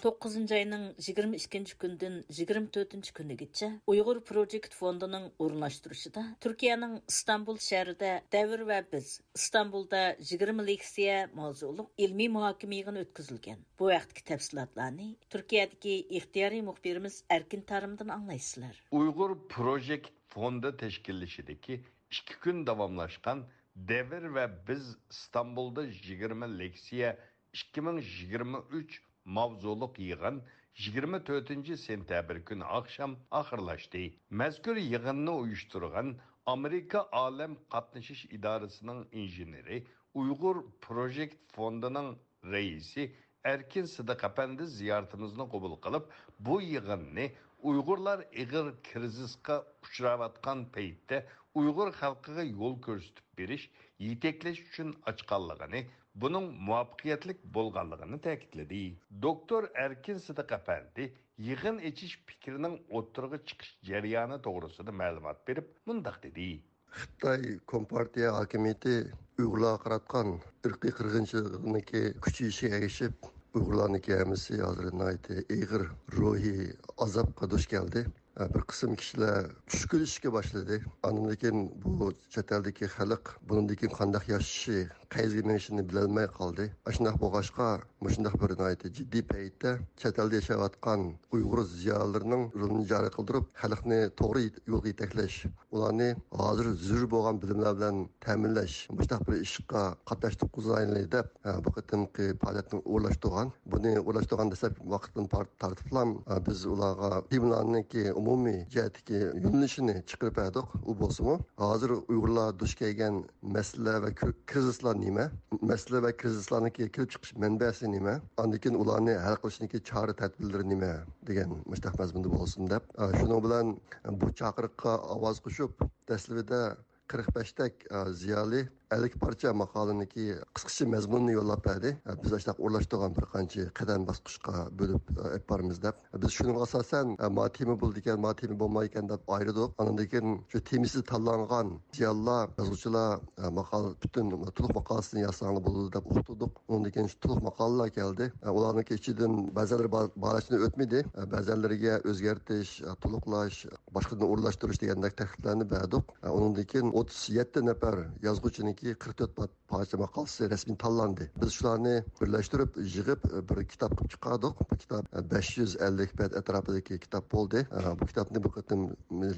توققۇزىنچى ئاينىڭ يىگىرمە ئىككىنچى كۈنىدىن يىگىرمە تۆتىنچى كۈنىگىچە ئۇيغۇر پروجېكت فوندىنىڭ ئورۇنلاشتۇرۇشىدا تۈركىيەنىڭ ئىستانبۇل شەھىرىدە دەۋر ۋە بىز، ئىستانبۇلدا يىگىرمە لېكسىيە ماۋزۇلۇق ئىلمىي مۇھاكىمە يىغىنى ئۆتكۈزۈلگەن. بۇ ھەقتىكى تەپسىلاتلارنى تۈركىيەدىكى ئىختىيارىي مۇخبىرىمىز ئەركىن تارىمدىن ئاڭلايسىلەر. ئۇيغۇر پروجېكت فوندى تەشكىللىشىدىكى ئىككى كۈن داۋاملاشقان دەۋر ۋە بىز ئىستانبۇلدا يىگىرمە لېكسىيە ئىككى مىڭ يىگىرمە ئۈچ ماۋزۇلۇق يىغىن يىگىرمە تۆتىنچى سېنتەبىر كۈنى ئاخشام ئاخىرلاشتى. مەزكۇر يىغىننى ئۇيۇشتۇرغان ئامېرىكا ئالەم قاتنىشىش ئىدارىسىنىڭ ئىنژېنېرى، ئۇيغۇر پروجېكت فوندىنىڭ رەئىسى ئەركىن سىدىق ئەپەندى زىيارىتىمىزنى قوبۇل قىلىپ، بۇ يىغىننى ئۇيغۇرلار ئېغىر كىرىزىسقا ئۇچراۋاتقان پەيتتە ئۇيغۇر خەلقىگە يول كۆرسىتىپ بېرىش، يېتەكلەش ئۈچۈن ئاچقانلىقىنى، بۇنىڭ مۇۋەپپەقىيەتلىك بولغانلىقىنى تەكىتلىدى. دوكتور ئەركىن سىدىق ئەپەندى يىغىن ئېچىش پىكرىنىڭ ئوتتۇرىغا چىقىش جەريانى توغرىسىدا مەلۇمات بېرىپ، مۇنداق دېدى. خىتاي كومپارتىيە ھاكىمىيىتى ئۇيغۇرلارغا قاراتقان ئىرقىي قىرغىنچىلىقنىڭكى كۈچىيىشىگە ئەگىشىپ، ئۇيغۇرلارنىڭكى ھەممىسى ھازىر ناھايىتى ئېغىر روھىي ئازابقا دۇچ كەلدى. بىر قىسىم كىشىلەر چۈشكۈنلىشىشكە باشلىدى. ئاندىن كېيىن بۇ چەت ئەلدىكى خەلق بۇنىڭدىن كېيىن قانداق ياشىشى، قەيەرگە مېڭىشىنى بىلەلمەي قالدى. ئاشۇنداق بولغاچقا، مۇشۇنداق بىر ناھايىتى جىددىي پەيتتە چەت ئەلدە ياشاۋاتقان ئۇيغۇر زىيالىيلىرىنىڭ رولىنى جارى قىلدۇرۇپ، خەلقنى توغرا يولغا يېتەكلەش، ئۇلارنى ھازىر زۆرۈر بولغان بىلىملەر بىلەن تەمىنلەش، مۇشۇنداق بىر ئىشقا قاتناشتۇرغۇزايلى دەپ، بۇ قېتىمقى پائالىيەتنى ئورۇنلاشتۇرغان. بۇنى ئورۇنلاشتۇرغان دەسلەپكى ۋاقىتتىن پار-، تارتىپلا، بىز ئۇلارغا تېمىلارنىڭكى ئومۇمىي جەھەتتىكى يۆنىلىشىنى چىقىرىپ بەردۇق. ئۇ بولسىمۇ، ھازىر ئۇيغۇرلار دۇچ كەلگەن مەسىلە ۋە كىر-، كىرىزىسلار نېمە؟ مەسىلە ۋە كىرىزىسلارنىڭكى كېلىپ چىقىش مەنبەسى نېمە؟ ئاندىن كېيىن ئۇلارنى ھەل قىلىشنىڭكى چارە تەدبىرلىرى نېمە؟ دېگەن مۇشۇنداق مەزمۇندا بولسۇن دەپ، ئە، شۇنىڭ بىلەن بۇ چاقىرىققا ئاۋاز قوشۇپ، دەسلىپىدە قىرىق بەشتەك، ئە، زىيالىي ئەللىك پارچە ماقالىنىڭكى قىسقىچە مەزمۇنىنى يوللاپ بەردى. ئە، بىز ئاشۇنداق ئورۇنلاشتۇرغان بىر قانچە قەدەم باسقۇچقا بۆلۈپ، ئە، ئېلىپ بارىمىز دەپ. بىز شۇنىڭغا ئاساسەن، ئە، ما تېما بولىدىكەن، ما تېما بولمايدىكەن دەپ ئايرىدۇق. ئاندىن كېيىن شۇ تېمىسى تاللانغان زىيالىيلار، يازغۇچىلار، ئە، ماقالە، پۈتۈن تولۇق ماقالىسىنى يازساڭلار بولىدۇ دەپ ئۇقتۇردۇق. ئۇنىڭدىن كېيىن شۇ تولۇق ماقالىلار كەلدى. ئە، ئۇلارنىڭكى ئىچىدىن بەزىلىرى بار-، بارلىقتىن ئۆتمىدى. ئە، بەزىلىرىگە ئۆزگەرتىش، ئە، تولۇقلاش، باشقىدىن ئورۇنلاشتۇرۇش دېگەندەك تەكلىپلەرنى بەردۇق. ئە، ئۇنىڭدىن كېيىن ئوتتۇز يەتتە نەپەر يازغۇچىنىڭكى قىرىق تۆت پا-، پارچە ماقالىسى رەسمىي تاللاندى. بىز شۇلارنى بىرلەشتۈرۈپ، يىغىپ، بىر كىتاب قىلىپ چىقاردۇق. بۇ كىتاب، ئە، بەش يۈز ئەللىك بەت ئەتراپىدىكى كىتاب بولدى. ئە، بۇ كىتابنى بۇ قېتىم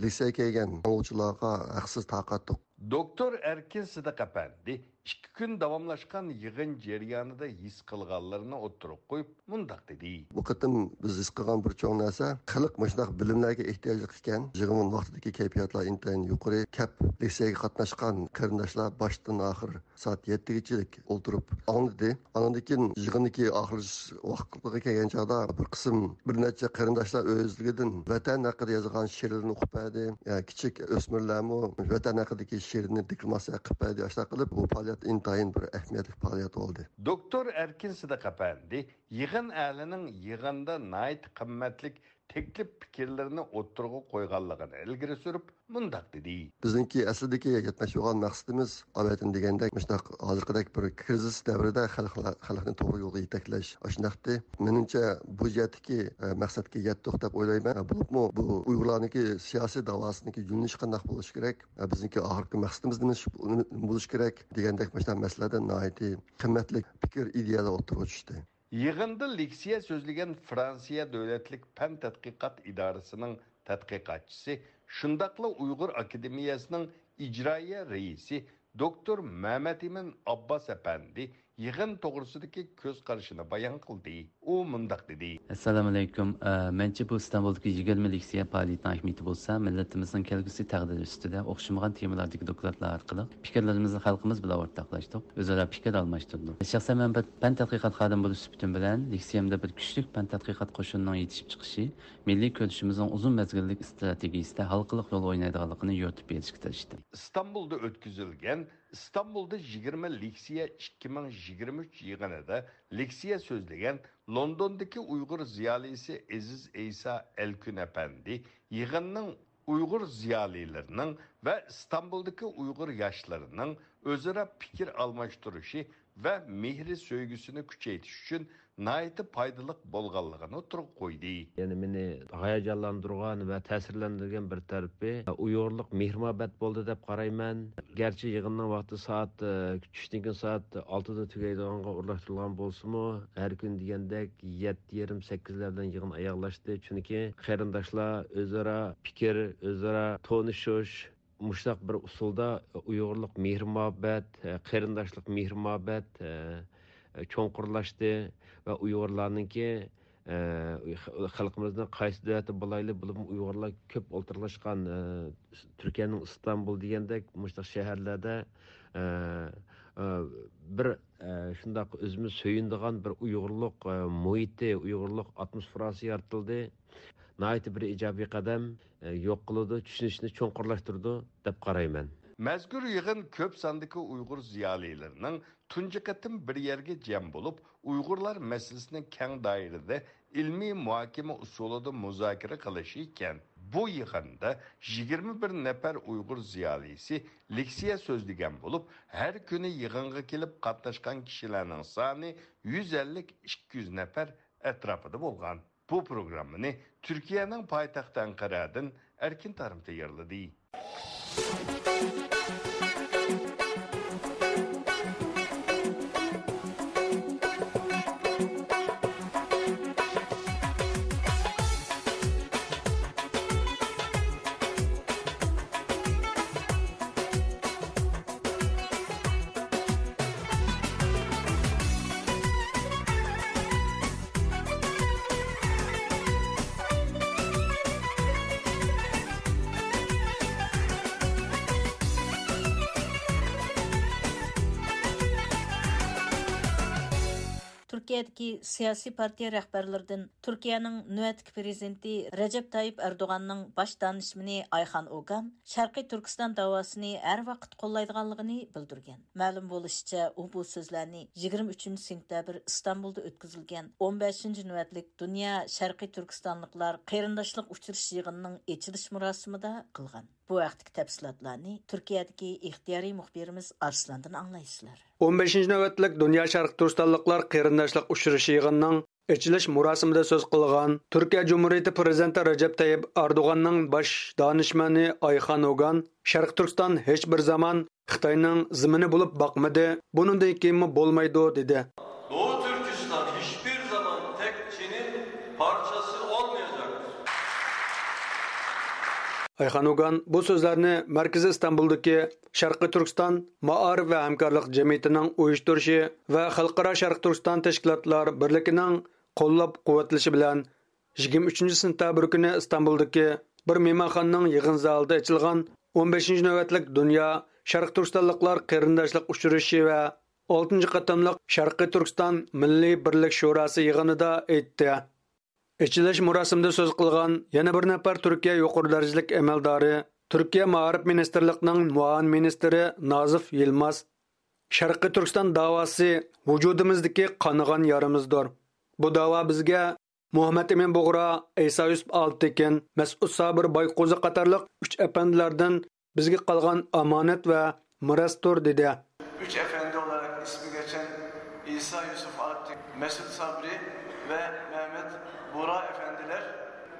لىسېيگە كەلگەن ئوقۇغۇچىلارغا ھەقسىز تارقاتتۇق. دوكتور ئەركىن سىدىق ئەپەندى ئىككى كۈن داۋاملاشقان يىغىن جەريانىدا ھېس قىلغانلىرىنى ئوتتۇرىغا قويۇپ، مۇنداق دېدى. بۇ قېتىم بىز ھېس قىلغان بىر چوڭ نەرسە، خەلق مۇشۇنداق بىلىملەرگە ئېھتىياجلىق ئىكەن. يىغىن ۋاقتىدىكى كەيپىياتلار ئىنتايىن يۇقىرى. كەپ لېكسىيەگە قاتناشقان قېرىنداشلار باشتىن ئاخىر سائەت يەتتىگىچىلىك ئولتۇرۇپ ئاڭلىدى. ئاندىن كېيىن يىغىننىڭكى ئاخىرلىشىش ۋاقتىغا كەلگەن چاغدا بىر قىسىم، بىر نەچچە قېرىنداشلار ئۆزلۈكىدىن ۋەتەن ھەققىدە يازغان شېئىرلىرىنى ئوقۇپ بەردى. يا، كىچىك ئۆسمۈرلەرمۇ ۋەتەن ھەققىدىكى شېئىرنى دېكلاماتسىيە قىلىپ بەردى. ئاشۇنداق قىلىپ، بۇ پائالىيەت ئىنتايىن بىر ئەھمىيەتلىك پائالىيەت بولدى. دوكتور ئەركىن سىدىق ئەپەندى يىغىن ئەھلىنىڭ يىغىندا ناھايىتى قىممەتلىك تەكلىپ پىكىرلىرىنى ئوتتۇرىغا قويغانلىقىنى ئىلگىرى سۈرۈپ، مۇنداق دېدى. بىزنىڭكى ئەسلىدىكى يەتمەكچى بولغان مەقسىتىمىز، ئاۋۋالدىن دېگەندەك، مۇشۇنداق ھازىرقىدەك بىر كىرىزىس دەۋرىدە خەلقلەر، خەلقنى توغرا يولغا يېتەكلەش ئاشۇنداقتى. مېنىڭچە، بۇ جەھەتتىكى، ئە، مەقسەتكە يەتتۇق دەپ ئويلايمەن. بولۇپمۇ بۇ ئۇيغۇرلارنىڭكى سىياسىي داۋاسىنىڭكى يۆنىلىشى قانداق بولۇشى كېرەك، ئە، بىزنىڭكى ئاخىرقى مەقسىتىمىز نېمە بولۇشى كېرەك دېگەندەك مۇشۇنداق مەسىلىلەردە ناھايىتى قىممەتلىك پىكىر، ئىدىيەلەر ئوتتۇرىغا چۈشتى. يىغىندا لېكسىيە سۆزلىگەن فرانسىيە دۆلەتلىك پەن تەتقىقات ئىدارىسىنىڭ تەتقىقاتچىسى، شۇنداقلا ئۇيغۇر ئاكادېمىيەسىنىڭ ئىجرائىيە رەئىسى دوكتور مەمەتئىمىن ئابباس ئەپەندى يىغىن توغرىسىدىكى كۆز قارىشىنى بايان قىلدى. ئۇ مۇنداق دېدى. ئەسسالامۇئەلەيكۇم. ئە، مەنچە بۇ ئىستانبۇلدىكى يىگىرمە لېكسىيە پائالىيىتىنىڭ ئەھمىيىتى بولسا، مىللىتىمىزنىڭ كەلگۈسى تەقدىرى ئۈستىدە ئوخشىمىغان تېمىلاردىكى دوكلاتلار ئارقىلىق پىكىرلىرىمىزنى خەلقىمىز بىلەن ئورتاقلاشتۇق، ئۆزئارا پىكىر ئالماشتۇردۇق. شەخسەن مەن بىر پەن تەتقىقات خادىمى بولۇش سۈپىتىم بىلەن، لېكسىيەمدە بىر كۈچلۈك پەن تەتقىقات قوشۇنىنىڭ يېتىشىپ چىقىشى، مىللىي كۈرىشىمىزنىڭ ئۇزۇن مەزگىللىك ئىستراتېگىيىسىدە ھالقىلىق رول ئوينايدىغانلىقىنى يورۇتۇپ بېرىشكە تىرىشتىم. ئىستانبۇلدا ئۆتكۈزۈلگەن ئىستانبۇلدا يىگىرمە لېكسىيە ئىككى مىڭ يىگىرمە ئۈچ يىغىنىدا لېكسىيە سۆزلىگەن لوندوندىكى ئۇيغۇر زىيالىيسى ئېزىز ئەيسا ئەلكۈن ئەپەندى يىغىننىڭ ئۇيغۇر زىيالىيلىرىنىڭ ۋە ئىستانبۇلدىكى ئۇيغۇر ياشلىرىنىڭ ئۆزئارا پىكىر ئالماشتۇرۇشى ۋە مېھرى سۆيگۈسىنى كۈچەيتىش ئۈچۈن ناھايىتى پايدىلىق بولغانلىقىنى ئوتتۇرىغا قويدى. يەنە مېنى ھاياجانلاندۇرغان ۋە تەسىرلەندۈرگەن بىر تەرىپى، ئۇيغۇرلۇق مېھىر-مۇھەببەت بولدى دەپ قارايمەن. گەرچە يىغىننىڭ ۋاقتى سائەت، ئە، چۈشتىن كېيىن سائەت ئالتىدا تۈگەيدىغانغا ئورۇنلاشتۇرۇلغان بولسىمۇ، ھەر كۈنى دېگەندەك يەتتە يېرىم، سەككىزلەر بىلەن يىغىن ئاياغلاشتى. چۈنكى قېرىنداشلار ئۆزئارا پىكىر، ئۆزئارا تونۇشۇش، مۇشۇنداق بىر ئۇسۇلدا ئۇيغۇرلۇق مېھىر-مۇھەببەت، قېرىنداشلىق مېھىر-مۇھەببەت چوڭقۇرلاشتى ۋە ئۇيغۇرلارنىڭكى، خەلقىمىزنىڭ قايسى دۆلەتتە بولايلى، بولۇپمۇ ئۇيغۇرلار كۆپ ئولتۇرلاشقان، تۈركىيەنىڭ ئىستانبۇل دېگەندەك مۇشۇنداق شەھەرلەردە، بىر، شۇنداق ئۆزىمىز سۆيۈنىدىغان بىر ئۇيغۇرلۇق مۇھىتى، ئۇيغۇرلۇق ئاتموسفېراسى يارىتىلدى. ناھايىتى بىر ئىجابىي قەدەم، ئە، يوق قىلىدۇ، چۈشىنىشنى چوڭقۇرلاشتۇرىدۇ دەپ قارايمەن. مەزكۇر يىغىن كۆپ ساندىكى ئۇيغۇر زىيالىيلىرىنىڭ تۇنجى قېتىم بىر يەرگە جەم بولۇپ، ئۇيغۇرلار مەسىلىسىنى كەڭ دائىرىدە ئىلمىي مۇھاكىمە ئۇسۇلىدا مۇزاكىرە قىلىشى ئىكەن. بۇ يىغىندا يىگىرمە بىر نەپەر ئۇيغۇر زىيالىيسى لېكسىيە سۆزلىگەن بولۇپ، ھەر كۈنى يىغىنغا كېلىپ قاتناشقان كىشىلەرنىڭ سانى يۈز ئەللىك، ئىككى يۈز نەپەر ئەتراپىدا بولغان. بۇ پروگراممىنى تۈركىيەنىڭ پايتەختى ئەنقەرەدىن ئەركىن تارىم تەييارلىدى. تۈركىيەدىكى سىياسىي پارتىيە رەھبەرلىرىدىن تۈركىيەنىڭ نۆۋەتتىكى پىرېزىدېنتى رەجەپ تايىپ ئەردوغاننىڭ باش دانىشمىنى ئايخان ئوگان شەرقىي تۈركىستان داۋاسىنى ھەر ۋاقىت قوللايدىغانلىقىنى بىلدۈرگەن. مەلۇم بولۇشىچە، ئۇ بۇ سۆزلەرنى يىگىرمە ئۈچىنچى سېنتەبىر ئىستانبۇلدا ئۆتكۈزۈلگەن ئون بەشىنچى نۆۋەتلىك دۇنيا شەرقىي تۈركىستانلىقلار قېرىنداشلىق ئۇچرىشىش يىغىنىنىڭ ئېچىلىش مۇراسىمىدا قىلغان. بۇ ھەقتىكى تەپسىلاتلارنى تۈركىيەدىكى ئىختىيارىي مۇخبىرىمىز ئارسلاندىن ئاڭلايسىلەر. ئون بەشىنچى نۆۋەتلىك دۇنيا شەرقىي تۈركىستانلىقلار قېرىنداشلىق ئۇچرىشىشى يىغىنىنىڭ ئېچىلىش مۇراسىمىدا سۆز قىلغان تۈركىيە جۇمھۇرىيىتى پىرېزىدېنتى رەجەپ تەييىپ ئەردوغاننىڭ باش دانىشمەنى ئايخان ئوگان شەرقىي تۈركىستان ھېچ بىر زامان خىتاينىڭ زېمىنى بولۇپ باقمىدى، بۇنىڭدىن كېيىنمۇ بولمايدۇ، دېدى. Doğu Türkistan hiçbir zaman tek Çin'in parçası olmayacaktır. ئايخان ئوگان بۇ سۆزلەرنى مەركىزى ئىستانبۇلدىكى شەرقىي تۈركىستان مائارىپ ۋە ھەمكارلىق جەمئىيىتىنىڭ ئۇيۇشتۇرۇشى ۋە خەلقئارا شەرقىي تۈركىستان تەشكىلاتلار بىرلىكىنىڭ قوللاپ-قۇۋۋەتلىشى بىلەن يىگىرمە ئۈچىنچى سېنتەبىر كۈنى ئىستانبۇلدىكى بىر مېھمانخانىنىڭ يىغىن زالىدا ئېچىلغان ئون بەشىنچى نۆۋەتلىك دۇنيا شەرقىي تۈركىستانلىقلار قېرىنداشلىق ئۇچرىشىشى ۋە ئالتىنچى قېتىملىق شەرقىي تۈركىستان مىللىي بىرلىك شوراسى يىغىنىدا ئېيتتى. ئېچىلىش مۇراسىمىدا سۆز قىلغان يەنە بىر نەپەر تۈركىيە يۇقىرى دەرىجىلىك ئەمەلدارى، تۈركىيە مائارىپ مىنىستىرلىقىنىڭ مۇئاۋىن مىنىستىرى نازىف يىلماز، شەرقىي تۈركىستان داۋاسى ۋۇجۇدىمىزدىكى قانىغان يارىمىزدۇر. بۇ داۋا بىزگە مۇھەممەد ئىمىن بۇغرا، ئەيسا يۈسۈپ ئالپتېكىن، مەسئۇد سابىر بايقوزى قاتارلىق ئۈچ ئەپەندىلەردىن بىزگە قالغان ئامانەت ۋە مىراستۇر، دېدى. Üç efendi olarak ismi geçen İsa Yusuf Alptekin, Mesut Sabri ve Mehmet Buğra efendiler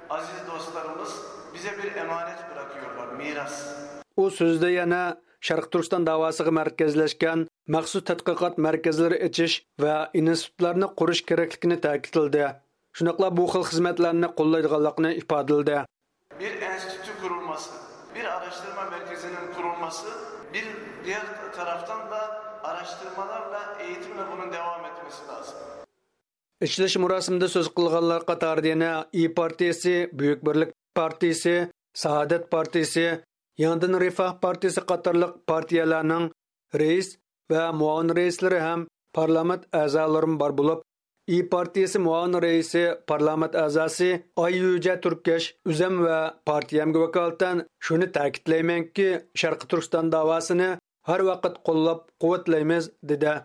aziz dostlarımız bize bir emanet bırakıyorlar, miras. ئۇ سۆزىدە يەنە شەرقىي تۈركىستان داۋاسىغا مەركەزلەشكەن مەخسۇس تەتقىقات مەركەزلىرى ئېچىش ۋە ئىنستىتۇتلارنى قۇرۇش كېرەكلىكىنى تەكىتلىدى. شۇنداقلا بۇ خىل خىزمەتلەرنى قوللايدىغانلىقىنى ئىپادىلىدى. Bir enstitü kurulması, bir araştırma merkezinin kurulması, bir diğer taraftan da araştırmalarla, eğitimle bunun devam etmesi lazım. ئېچىلىش مۇراسىمىدا سۆز قىلغانلار قاتارىدا يەنە ئىيى پارتىيىسى، بۈيۈك بىرلىك پارتىيىسى، سائادەت پارتىيىسى، يېڭىدىن رىفاھ پارتىيىسى قاتارلىق پارتىيەلەرنىڭ رەئىس ۋە مۇئاۋىن رەئىسلىرى ھەم پارلامېنت ئەزالىرىمۇ بار بولۇپ، ئىيى پارتىيىسى مۇئاۋىن رەئىسى، پارلامېنت ئەزاسى ئاي يۈجە تۈركەش ئۆزەم ۋە پارتىيەمگە ۋاكالىتەن شۇنى تەكىتلەيمەنكى، شەرقىي تۈركىستان داۋاسىنى ھەر ۋاقىت قوللاپ قۇۋۋەتلەيمىز، دېدى.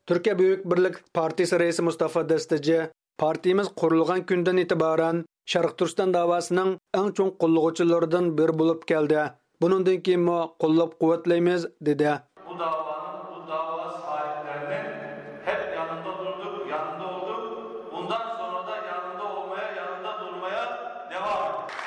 تۈركىيە بۈيۈك بىرلىك پارتىيىسى رەئىسى مۇستافا دەستىجى، پارتىيىمىز قۇرۇلغان كۈندىن ئېتىبارەن شەرقىي تۈركىستان داۋاسىنىڭ ئەڭ چوڭ قوللىغۇچىلىرىدىن بىرى بولۇپ كەلدى. بۇنىڭدىن كېيىنمۇ قوللاپ قۇۋۋەتلەيمىز، دېدى. Bu davanın, bu dava sahiplerinin hep yanında durduk, yanında olduk. Bundan sonra da yanında olmaya, yanında durmaya devam edeceğiz.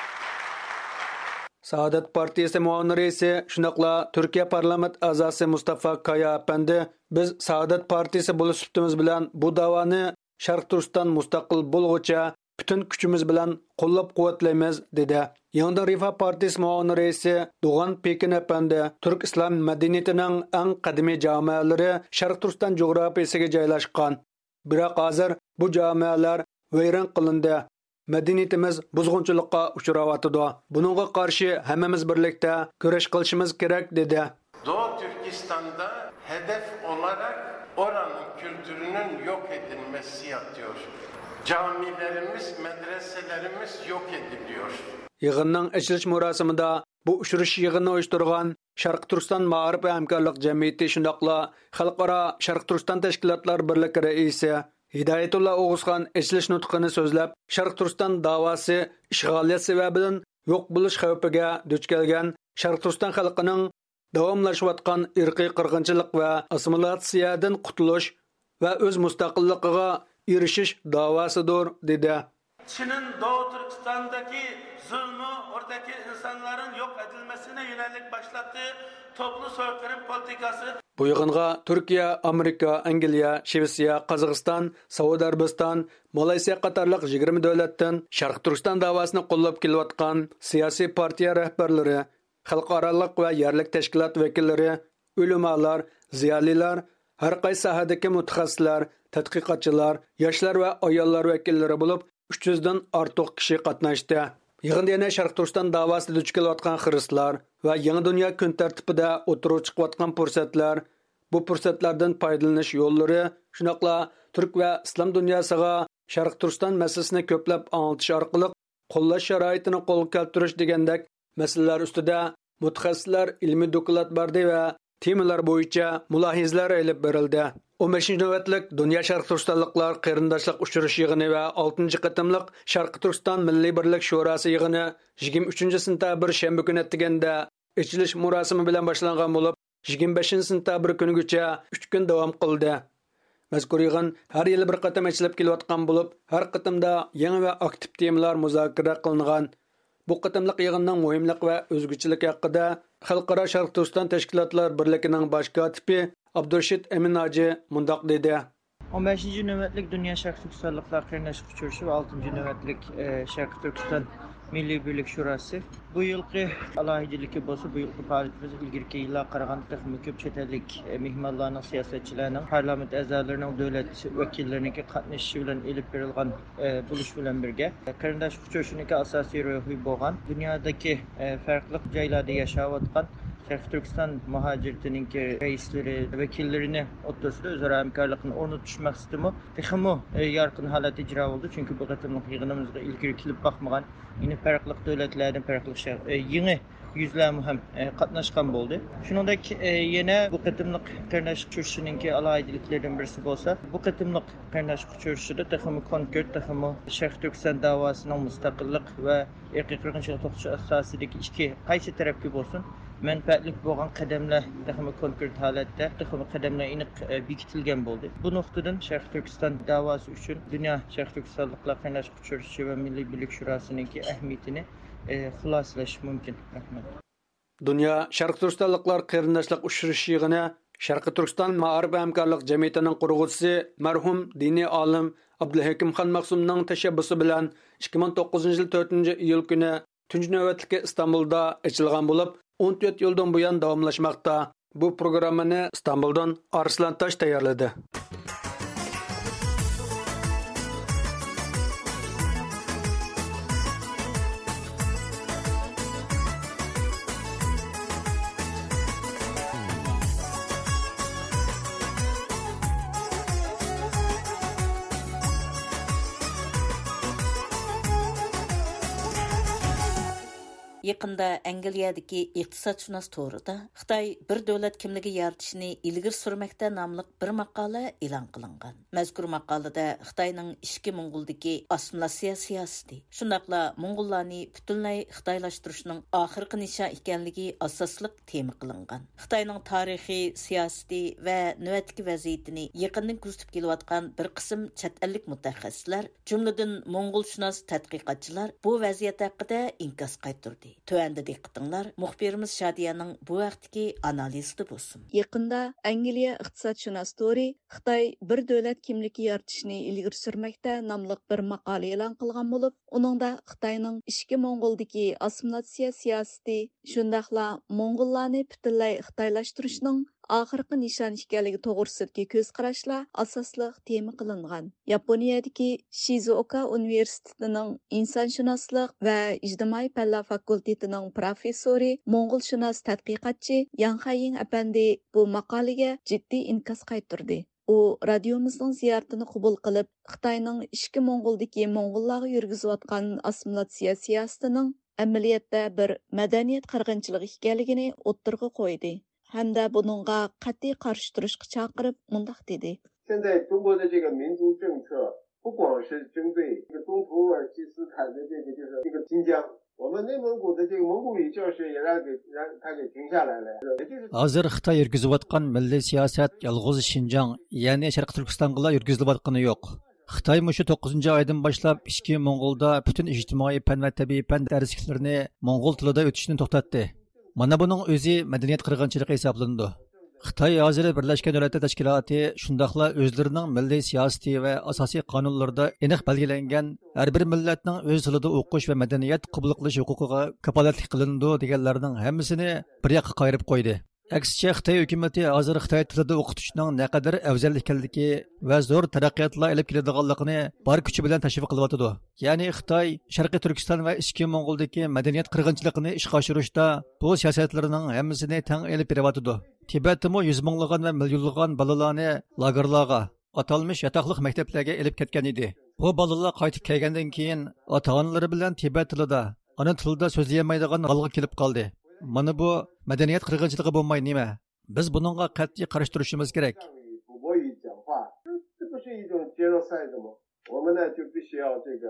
سائادەت پارتىيىسى مۇئاۋىن رەئىسى، شۇنداقلا تۈركىيە پارلامېنت ئەزاسى مۇستافا كايا ئەپەندى، بىز سائادەت پارتىيىسى بولۇش سۈپىتىمىز بىلەن بۇ داۋانى شەرقىي تۈركىستان مۇستەقىل بولغۇچە پۈتۈن كۈچىمىز بىلەن قوللاپ-قۇۋۋەتلەيمىز، دېدى. يېڭىدىن رىفاھ پارتىيىسى مۇئاۋىن رەئىسى دوغان پېكىن ئەپەندى، تۈرك ئىسلام مەدەنىيىتىنىڭ ئەڭ قەدىمىي جامەلىرى شەرقىي تۈركىستان جۇغراپىيىسىگە جايلاشقان. بىراق ھازىر بۇ جامەلەر ۋەيران قىلىندى. مەدەنىيىتىمىز بۇزغۇنچىلىققا ئۇچراۋاتىدۇ. بۇنىڭغا قارشى ھەممىمىز بىرلىكتە كۈرەش قىلىشىمىز كېرەك، دېدى. Doğu Türkistan'da hedef olarak oranın kültürünün yok edilmesi yatıyor. Camilerimiz, medreselerimiz yok ediliyor. يىغىننىڭ ئېچىلىش مۇراسىمىدا بۇ ئۇچرىشىش يىغىنىنى ئۇيۇشتۇرغان شەرقىي تۈركىستان مائارىپ ۋە ھەمكارلىق جەمئىيىتى، شۇنداقلا خەلقئارا شەرقىي تۈركىستان تەشكىلاتلار بىرلىكى رەئىسى ھىدايەتۇللا ئوغۇزخان ئېچىلىش نۇتقىنى سۆزلەپ، شەرقىي تۈركىستان داۋاسى ئىشغالىيەت سەۋەبىدىن يوق بولۇش خەۋپىگە دۇچ كەلگەن شەرقىي تۈركىستان خەلقىنىڭ داۋاملىشىۋاتقان ئىرقىي قىرغىنچىلىق ۋە ئاسسىمىلياتسىيەدىن قۇتۇلۇش ۋە ئۆز مۇستەقىللىقىغا ئېرىشىش داۋاسىدۇر، دېدى. Çin'in Doğu Türkistan'daki zulmü, oradaki insanların yok edilmesine yönelik başlattığı toplu soykırım politikası. بۇ يىغىنغا تۈركىيە، ئامېرىكا، ئەنگلىيە، شىۋېتسىيە، قازاقىستان، سەئۇدى ئەرەبىستان، مالايسىيە قاتارلىق يىگىرمە دۆلەتتىن شەرقىي تۈركىستان داۋاسىنى قوللاپ كېلىۋاتقان سىياسىي پارتىيە رەھبەرلىرى، خەلقئارالىق ۋە يەرلىك تەشكىلات ۋەكىللىرى، ئۆلىمالار، زىيالىيلار، ھەر قايسى ساھەدىكى مۇتەخەسسىسلەر، تەتقىقاتچىلار، ياشلار ۋە ئاياللار ۋەكىللىرى بولۇپ، ئۈچ يۈزدىن ئارتۇق كىشى قاتناشتى. يىغىندا يەنە شەرقىي تۈركىستان داۋاسىدا دۇچ كېلىۋاتقان خىرىسلار ۋە يېڭى دۇنيا كۈن تەرتىپىدە ئوتتۇرىغا چىقىۋاتقان پۇرسەتلەر، بۇ پۇرسەتلەردىن پايدىلىنىش يوللىرى، شۇنداقلا تۈرك ۋە ئىسلام دۇنياسىغا شەرقىي تۈركىستان مەسىلىسىنى كۆپلەپ ئاڭلىتىش ئارقىلىق قوللاش شارائىتىنى قولغا كەلتۈرۈش دېگەندەك مەسىلىلەر ئۈستىدە مۇتەخەسسىسلەر ئىلمىي دوكلات بەردى ۋە تېمىلار بويىچە مۇلاھىزىلەر ئېلىپ بېرىلدى. ئون بەشىنچى نۆۋەتلىك دۇنيا شەرقىي تۈركىستانلىقلار قېرىنداشلىق ئۇچرىشىش يىغىنى ۋە ئالتىنچى قېتىملىق شەرقىي تۈركىستان مىللىي بىرلىك شوراسى يىغىنى يىگىرمە ئۈچىنچى سېنتەبىر شەنبە كۈنى ئەتىگەندە ئېچىلىش مۇراسىمى بىلەن باشلانغان بولۇپ، يىگىرمە بەشىنچى سېنتەبىر كۈنىگىچە ئۈچ كۈن داۋام قىلدى. مەزكۇر يىغىن ھەر يىلى بىر قېتىم ئېچىلىپ كېلىۋاتقان بولۇپ، ھەر قېتىمدا يېڭى ۋە ئاكتىپ تېمىلار مۇزاكىرە قىلىنغان. بۇ قېتىملىق يىغىننىڭ مۇھىملىقى ۋە ئۆزگىچىلىكى ھەققىدە خەلقئارا شەرقىي تۈركىستان تەشكىلاتلار بىرلىكىنىڭ باش كاتىپى ئابدۇرېشىت ئەمىن ھاجى مۇنداق دېدى. ئون بەشىنچى نۆۋەتلىك دۇنيا شەرقىي تۈركىستانلىقلار قېرىنداشلىق ئۇچرىشىشى ۋە ئالتىنچى نۆۋەتلىك، ئە، شەرقىي تۈركىستان مىللىي بىرلىك شوراسى. بۇ يىلقى ئالاھىدىلىكى بولسا، بۇ يىلقى پائالىيىتىمىز ئىلگىرىكى يىللارغا قارىغاندا تېخىمۇ كۆپ چەت ئەللىك، ئە، مېھمانلارنىڭ، سىياسەتچىلەرنىڭ، پارلامېنت ئەزالىرىنىڭ، دۆلەت ۋەكىللىرىنىڭكى قاتنىشىشى بىلەن ئېلىپ بېرىلغان، ئە، بولۇش بىلەن بىرگە، قېرىنداشلىق ئۇچرىشىشىنىڭكى ئاساسىي روھى بولغان دۇنيادىكى، ئە، پەرقلىق جايلاردا ياشاۋاتقان شەرقىي تۈركىستان مۇھاجىرىتىنىڭكى رەئىسلىرى، ۋەكىللىرىنى ئوتتۇرىسىدا ئۆزئارا ھەمكارلىقنى ئورنىتىش مەقسىتىمۇ تېخىمۇ، ئە، يارقىن ھالەتتە ئىجرا بولدى. چۈنكى بۇ قېتىملىق يىغىنىمىزغا ئىلگىرى كېلىپ باقمىغان، يەنى پەرقلىق دۆلەتلەردىن پەرقلىق شەر-، ئە، يېڭى يۈزلەرمۇ ھەم، ئە، قاتناشقان بولدى. شۇنىڭدەك، ئە، يەنە بۇ قېتىملىق قېرىنداشلىق ئۇچرىشىشىنىڭكى ئالاھىدىلىكلىرىدىن بىرسى بولسا، بۇ قېتىملىق قېرىنداشلىق ئۇچرىشىشىدا تېخىمۇ كونكرېت، تېخىمۇ شەرقىي تۈركىستان داۋاسىنىڭ مۇستەقىللىق ۋە ئىرقىي قىرغىنچىلىق توختىتىش ئاساسىدىكى ئىككى قايسى تەرەپكە بولسۇن مەنپەئەتلىك بولغان قەدەملەر تېخىمۇ كونكرېت ھالەتتە، تېخىمۇ قەدەملەر ئېنىق، ئە، بېكىتىلگەن بولدى. بۇ نۇقتىدىن شەرقىي تۈركىستان داۋاسى ئۈچۈن دۇنيا شەرقىي تۈركىستانلىقلار قېرىنداشلىق ئۇچرىشىشى ۋە مىللىي بىرلىك شوراسىنىڭكى ئەھمىيىتىنى، ئە، خۇلاسىلەش مۇمكىن. رەھمەت. دۇنيا شەرقىي تۈركىستانلىقلار قېرىنداشلىق ئۇچرىشىش يىغىنى شەرقىي تۈركىستان مائارىپ ھەمكارلىق جەمئىيىتىنىڭ قۇرغۇچىسى، مەرھۇم دىنىي ئالىم ئابدۇلھېكىم خان مەخسۇمنىڭ تەشەببۇسى بىلەن ئىككى مىڭ توققۇزىنچى يىل تۆتىنچى ئىيۇل كۈنى تۇنجى نۆۋەتلىكى ئىستانبۇلدا ئېچىلغان بولۇپ، ئون تۆت يىلدىن بۇيان داۋاملاشماقتا. بۇ پروگراممىنى ئىستانبۇلدىن ئارسلان تاش تەييارلىدى. يېقىندا ئەنگلىيەدىكى ئىقتىسادشۇناس تورىدا خىتاي بىر دۆلەت كىملىكى يارىتىشنى ئىلگىرى سۈرمەكتە ناملىق بىر ماقالە ئېلان قىلىنغان. مەزكۇر ماقالىدە خىتاينىڭ ئىچكى موڭغۇلدىكى ئاسسىمىلياتسىيە سىياسىتى، شۇنداقلا موڭغۇللارنى پۈتۈنلەي خىتايلاشتۇرۇشنىڭ ئاخىرقى نىشان ئىكەنلىكى ئاساسلىق تېما قىلىنغان. خىتاينىڭ تارىخىي، سىياسىتى ۋە نۆۋەتتىكى ۋەزىيىتىنى يېقىندىن كۆزىتىپ كېلىۋاتقان بىر قىسىم چەت ئەللىك مۇتەخەسسىسلەر، جۈملىدىن موڭغۇلشۇناس تەتقىقاتچىلار بۇ ۋەزىيەت ھەققىدە ئىنكاس قايتۇردى. تۆۋەندە دىققىتىڭلار مۇخبىرىمىز شادىيەنىڭ بۇ ھەقتىكى ئانالىزىدا بولسۇن. يېقىندا ئەنگلىيە ئىقتىسادشۇناس تورى خىتاي بىر دۆلەت كىملىكى يارىتىشنى ئىلگىرى سۈرمەكتە ناملىق بىر ماقالە ئېلان قىلغان بولۇپ، ئۇنىڭدا خىتاينىڭ ئىچكى موڭغۇلدىكى ئاسسىمىلياتسىيە سىياسىتى، شۇنداقلا موڭغۇللارنى پۈتۈنلەي خىتايلاشتۇرۇشنىڭ ئاخىرقى نىشان ئىكەنلىكى توغرىسىدىكى كۆز قاراشلار ئاساسلىق تېما قىلىنغان. ياپونىيەدىكى شىزۇئوكا ئۇنىۋېرسىتېتىنىڭ ئىنسانشۇناسلىق ۋە ئىجتىمائىي پەنلەر فاكۇلتېتىنىڭ پروفېسسورى، موڭغۇلشۇناس تەتقىقاتچى ياڭ خەييىڭ ئەپەندى بۇ ماقالىگە جىددىي ئىنكاس قايتۇردى. ئۇ رادىيومىزنىڭ زىيارىتىنى قوبۇل قىلىپ، خىتاينىڭ ئىچكى موڭغۇلدىكى موڭغۇللارغا يۈرگۈزۈۋاتقان ئاسسىمىلياتسىيە سىياسىتىنىڭ ئەمەلىيەتتە بىر مەدەنىيەت قىرغىنچىلىقى ئىكەنلىكىنى ئوتتۇرىغا قويدى ھەمدە بۇنىڭغا قەتئىي قارشى تۇرۇشقا چاقىرىپ، مۇنداق دېدى. 现在中国的这个民族政策，不光是针对这个东土耳其斯坦的这个，就是这个新疆，我们内蒙古的这个蒙古语教学也让给，让他给停下来了，也就是 ھازىر خىتاي يۈرگۈزۈۋاتقان مىللىي سىياسەت يالغۇز شىنجاڭ، يەنى شەرقىي تۈركىستانغىلا يۈرگۈزۈلۈۋاتقىنى يوق. خىتاي مۇشۇ توققۇزىنچى ئايدىن باشلاپ ئىچكى موڭغۇلدا پۈتۈن ئىجتىمائىي پەن ۋە تەبىئىي پەن دەرسلىكلىرىنى موڭغۇل تىلىدا ئۆتۈشنى توختاتتى. مانا بۇنىڭ ئۆزى مەدەنىيەت قىرغىنچىلىقى ھېسابلىنىدۇ. خىتاي ھازىر بىرلەشكەن دۆلەتلەر تەشكىلاتى شۇنداقلا ئۆزلىرىنىڭ مىللىي سىياسىتى ۋە ئاساسىي قانۇنلىرىدا ئېنىق بەلگىلەنگەن ھەر بىر مىللەتنىڭ ئۆز تىلىدا ئوقۇش ۋە مەدەنىيەت قوبۇل قىلىش ھوقۇقىغا كاپالەتلىك قىلىنىدۇ دېگەنلەرنىڭ ھەممىسىنى بىر ياققا قايرىپ قويدى. ئەكسىچە، خىتاي ھۆكۈمىتى ھازىر خىتاي تىلىدا ئوقۇتۇشنىڭ نەقەدەر ئەۋزەل ئىكەنلىكى ۋە زور تەرەققىياتلار ئېلىپ كېلىدىغانلىقىنى بار كۈچى بىلەن تەشۋىق قىلىۋاتىدۇ. يەنى خىتاي شەرقىي تۈركىستان ۋە ئىچكى موڭغۇلدىكى مەدەنىيەت قىرغىنچىلىقىنى ئىشقا ئاشۇرۇشتا بۇ سىياسەتلىرىنىڭ ھەممىسىنى تەڭ ئېلىپ بېرىۋاتىدۇ. تىبەتتىمۇ يۈز مىڭلىغان ۋە مىليونلىغان بالىلارنى لاگېرلارغا، ئاتالمىش ياتاقلىق مەكتەپلەرگە ئېلىپ كەتكەن ئىدى. بۇ بالىلار قايتىپ كەلگەندىن كېيىن ئاتا-ئانىلىرى بىلەن تىبەت تىلىدا، ئانا تىلىدا سۆزلىيەلمەيدىغان ھالغا كېلىپ قالدى. مانا بۇ مەدەنىيەت قىرغىنچىلىقى بولماي نېمە؟ بىز بۇنىڭغا قەتئىي قارشى تۇرۇشىمىز كېرەك. 这不是一种 genocide 吗？我们呢就必须要这个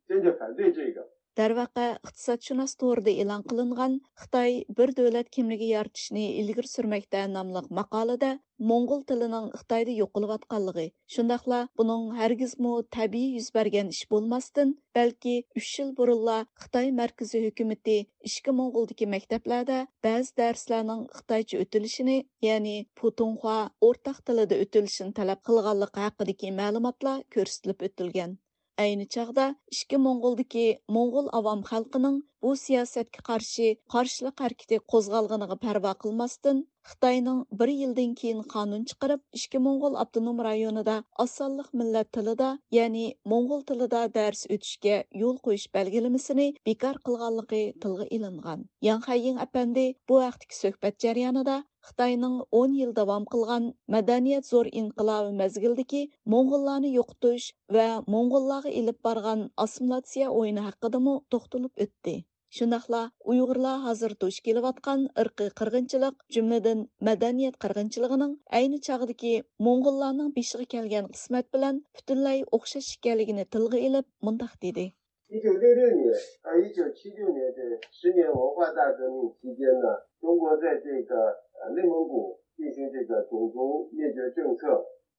坚决反对这个。 دەرۋەقە، ئىقتىسادشۇناس تورىدا ئېلان قىلىنغان خىتاي بىر دۆلەت كىملىكى يارىتىشنى ئىلگىرى سۈرمەكتە ناملىق ماقالىدە موڭغۇل تىلىنىڭ خىتايدا يوقىلىۋاتقانلىقى، شۇنداقلا بۇنىڭ ھەرگىزمۇ تەبىئىي يۈز بەرگەن ئىش بولماستىن، بەلكى ئۈچ يىل بۇرۇنلا خىتاي مەركىزىي ھۆكۈمىتى ئىچكى موڭغۇلدىكى مەكتەپلەردە بەزى دەرسلەرنىڭ خىتايچە ئۆتۈلۈشىنى، يەنى پۇتۇڭخۇا ئورتاق تىلىدا ئۆتۈلۈشىنى تەلەپ قىلغانلىقى ھەققىدىكى مەلۇماتلار كۆرسىتىلىپ ئۆتۈلگەن. ئەينى چاغدا ئىچكى موڭغۇلدىكى موڭغۇل ئاۋام خەلقىنىڭ بۇ سىياسەتكە قارشى قارشىلىق ھەرىكىتى قوزغالغىنىغا پەرۋا قىلماستىن، خىتاينىڭ بىر يىلدىن كېيىن قانۇن چىقىرىپ، ئىچكى موڭغۇل ئاپتونوم رايونىدا ئاز سانلىق مىللەت تىلىدا، يەنى موڭغۇل تىلىدا دەرس ئۆتۈشكە يول قويۇش بەلگىلىمىسىنى بىكار قىلغانلىقى تىلغا ئېلىنغان. ياڭ خەييىڭ ئەپەندى بۇ ھەقتىكى سۆھبەت جەريانىدا خىتاينىڭ ئون يىل داۋام قىلغان مەدەنىيەت زور ئىنقىلابى مەزگىلىدىكى موڭغۇللارنى يوقىتىش ۋە موڭغۇللارغا ئېلىپ بارغان ئاسسىمىلياتسىيە ئويۇنى ھەققىدىمۇ توختىلىپ ئۆتتى. شۇنداقلا ئۇيغۇرلار ھازىر دۇچ كېلىۋاتقان ئىرقىي قىرغىنچىلىق، جۈملىدىن مەدەنىيەت قىرغىنچىلىقىنىڭ ئەينى چاغدىكى موڭغۇللارنىڭ بېشىغا كەلگەن قىسمەت بىلەن پۈتۈنلەي ئوخشاش ئىكەنلىكىنى تىلغا ئېلىپ، مۇنداق دېدى. 一九六六年到一九七六年这十年文化大革命期间呢，中国在这个呃内蒙古进行这个种族灭绝政策。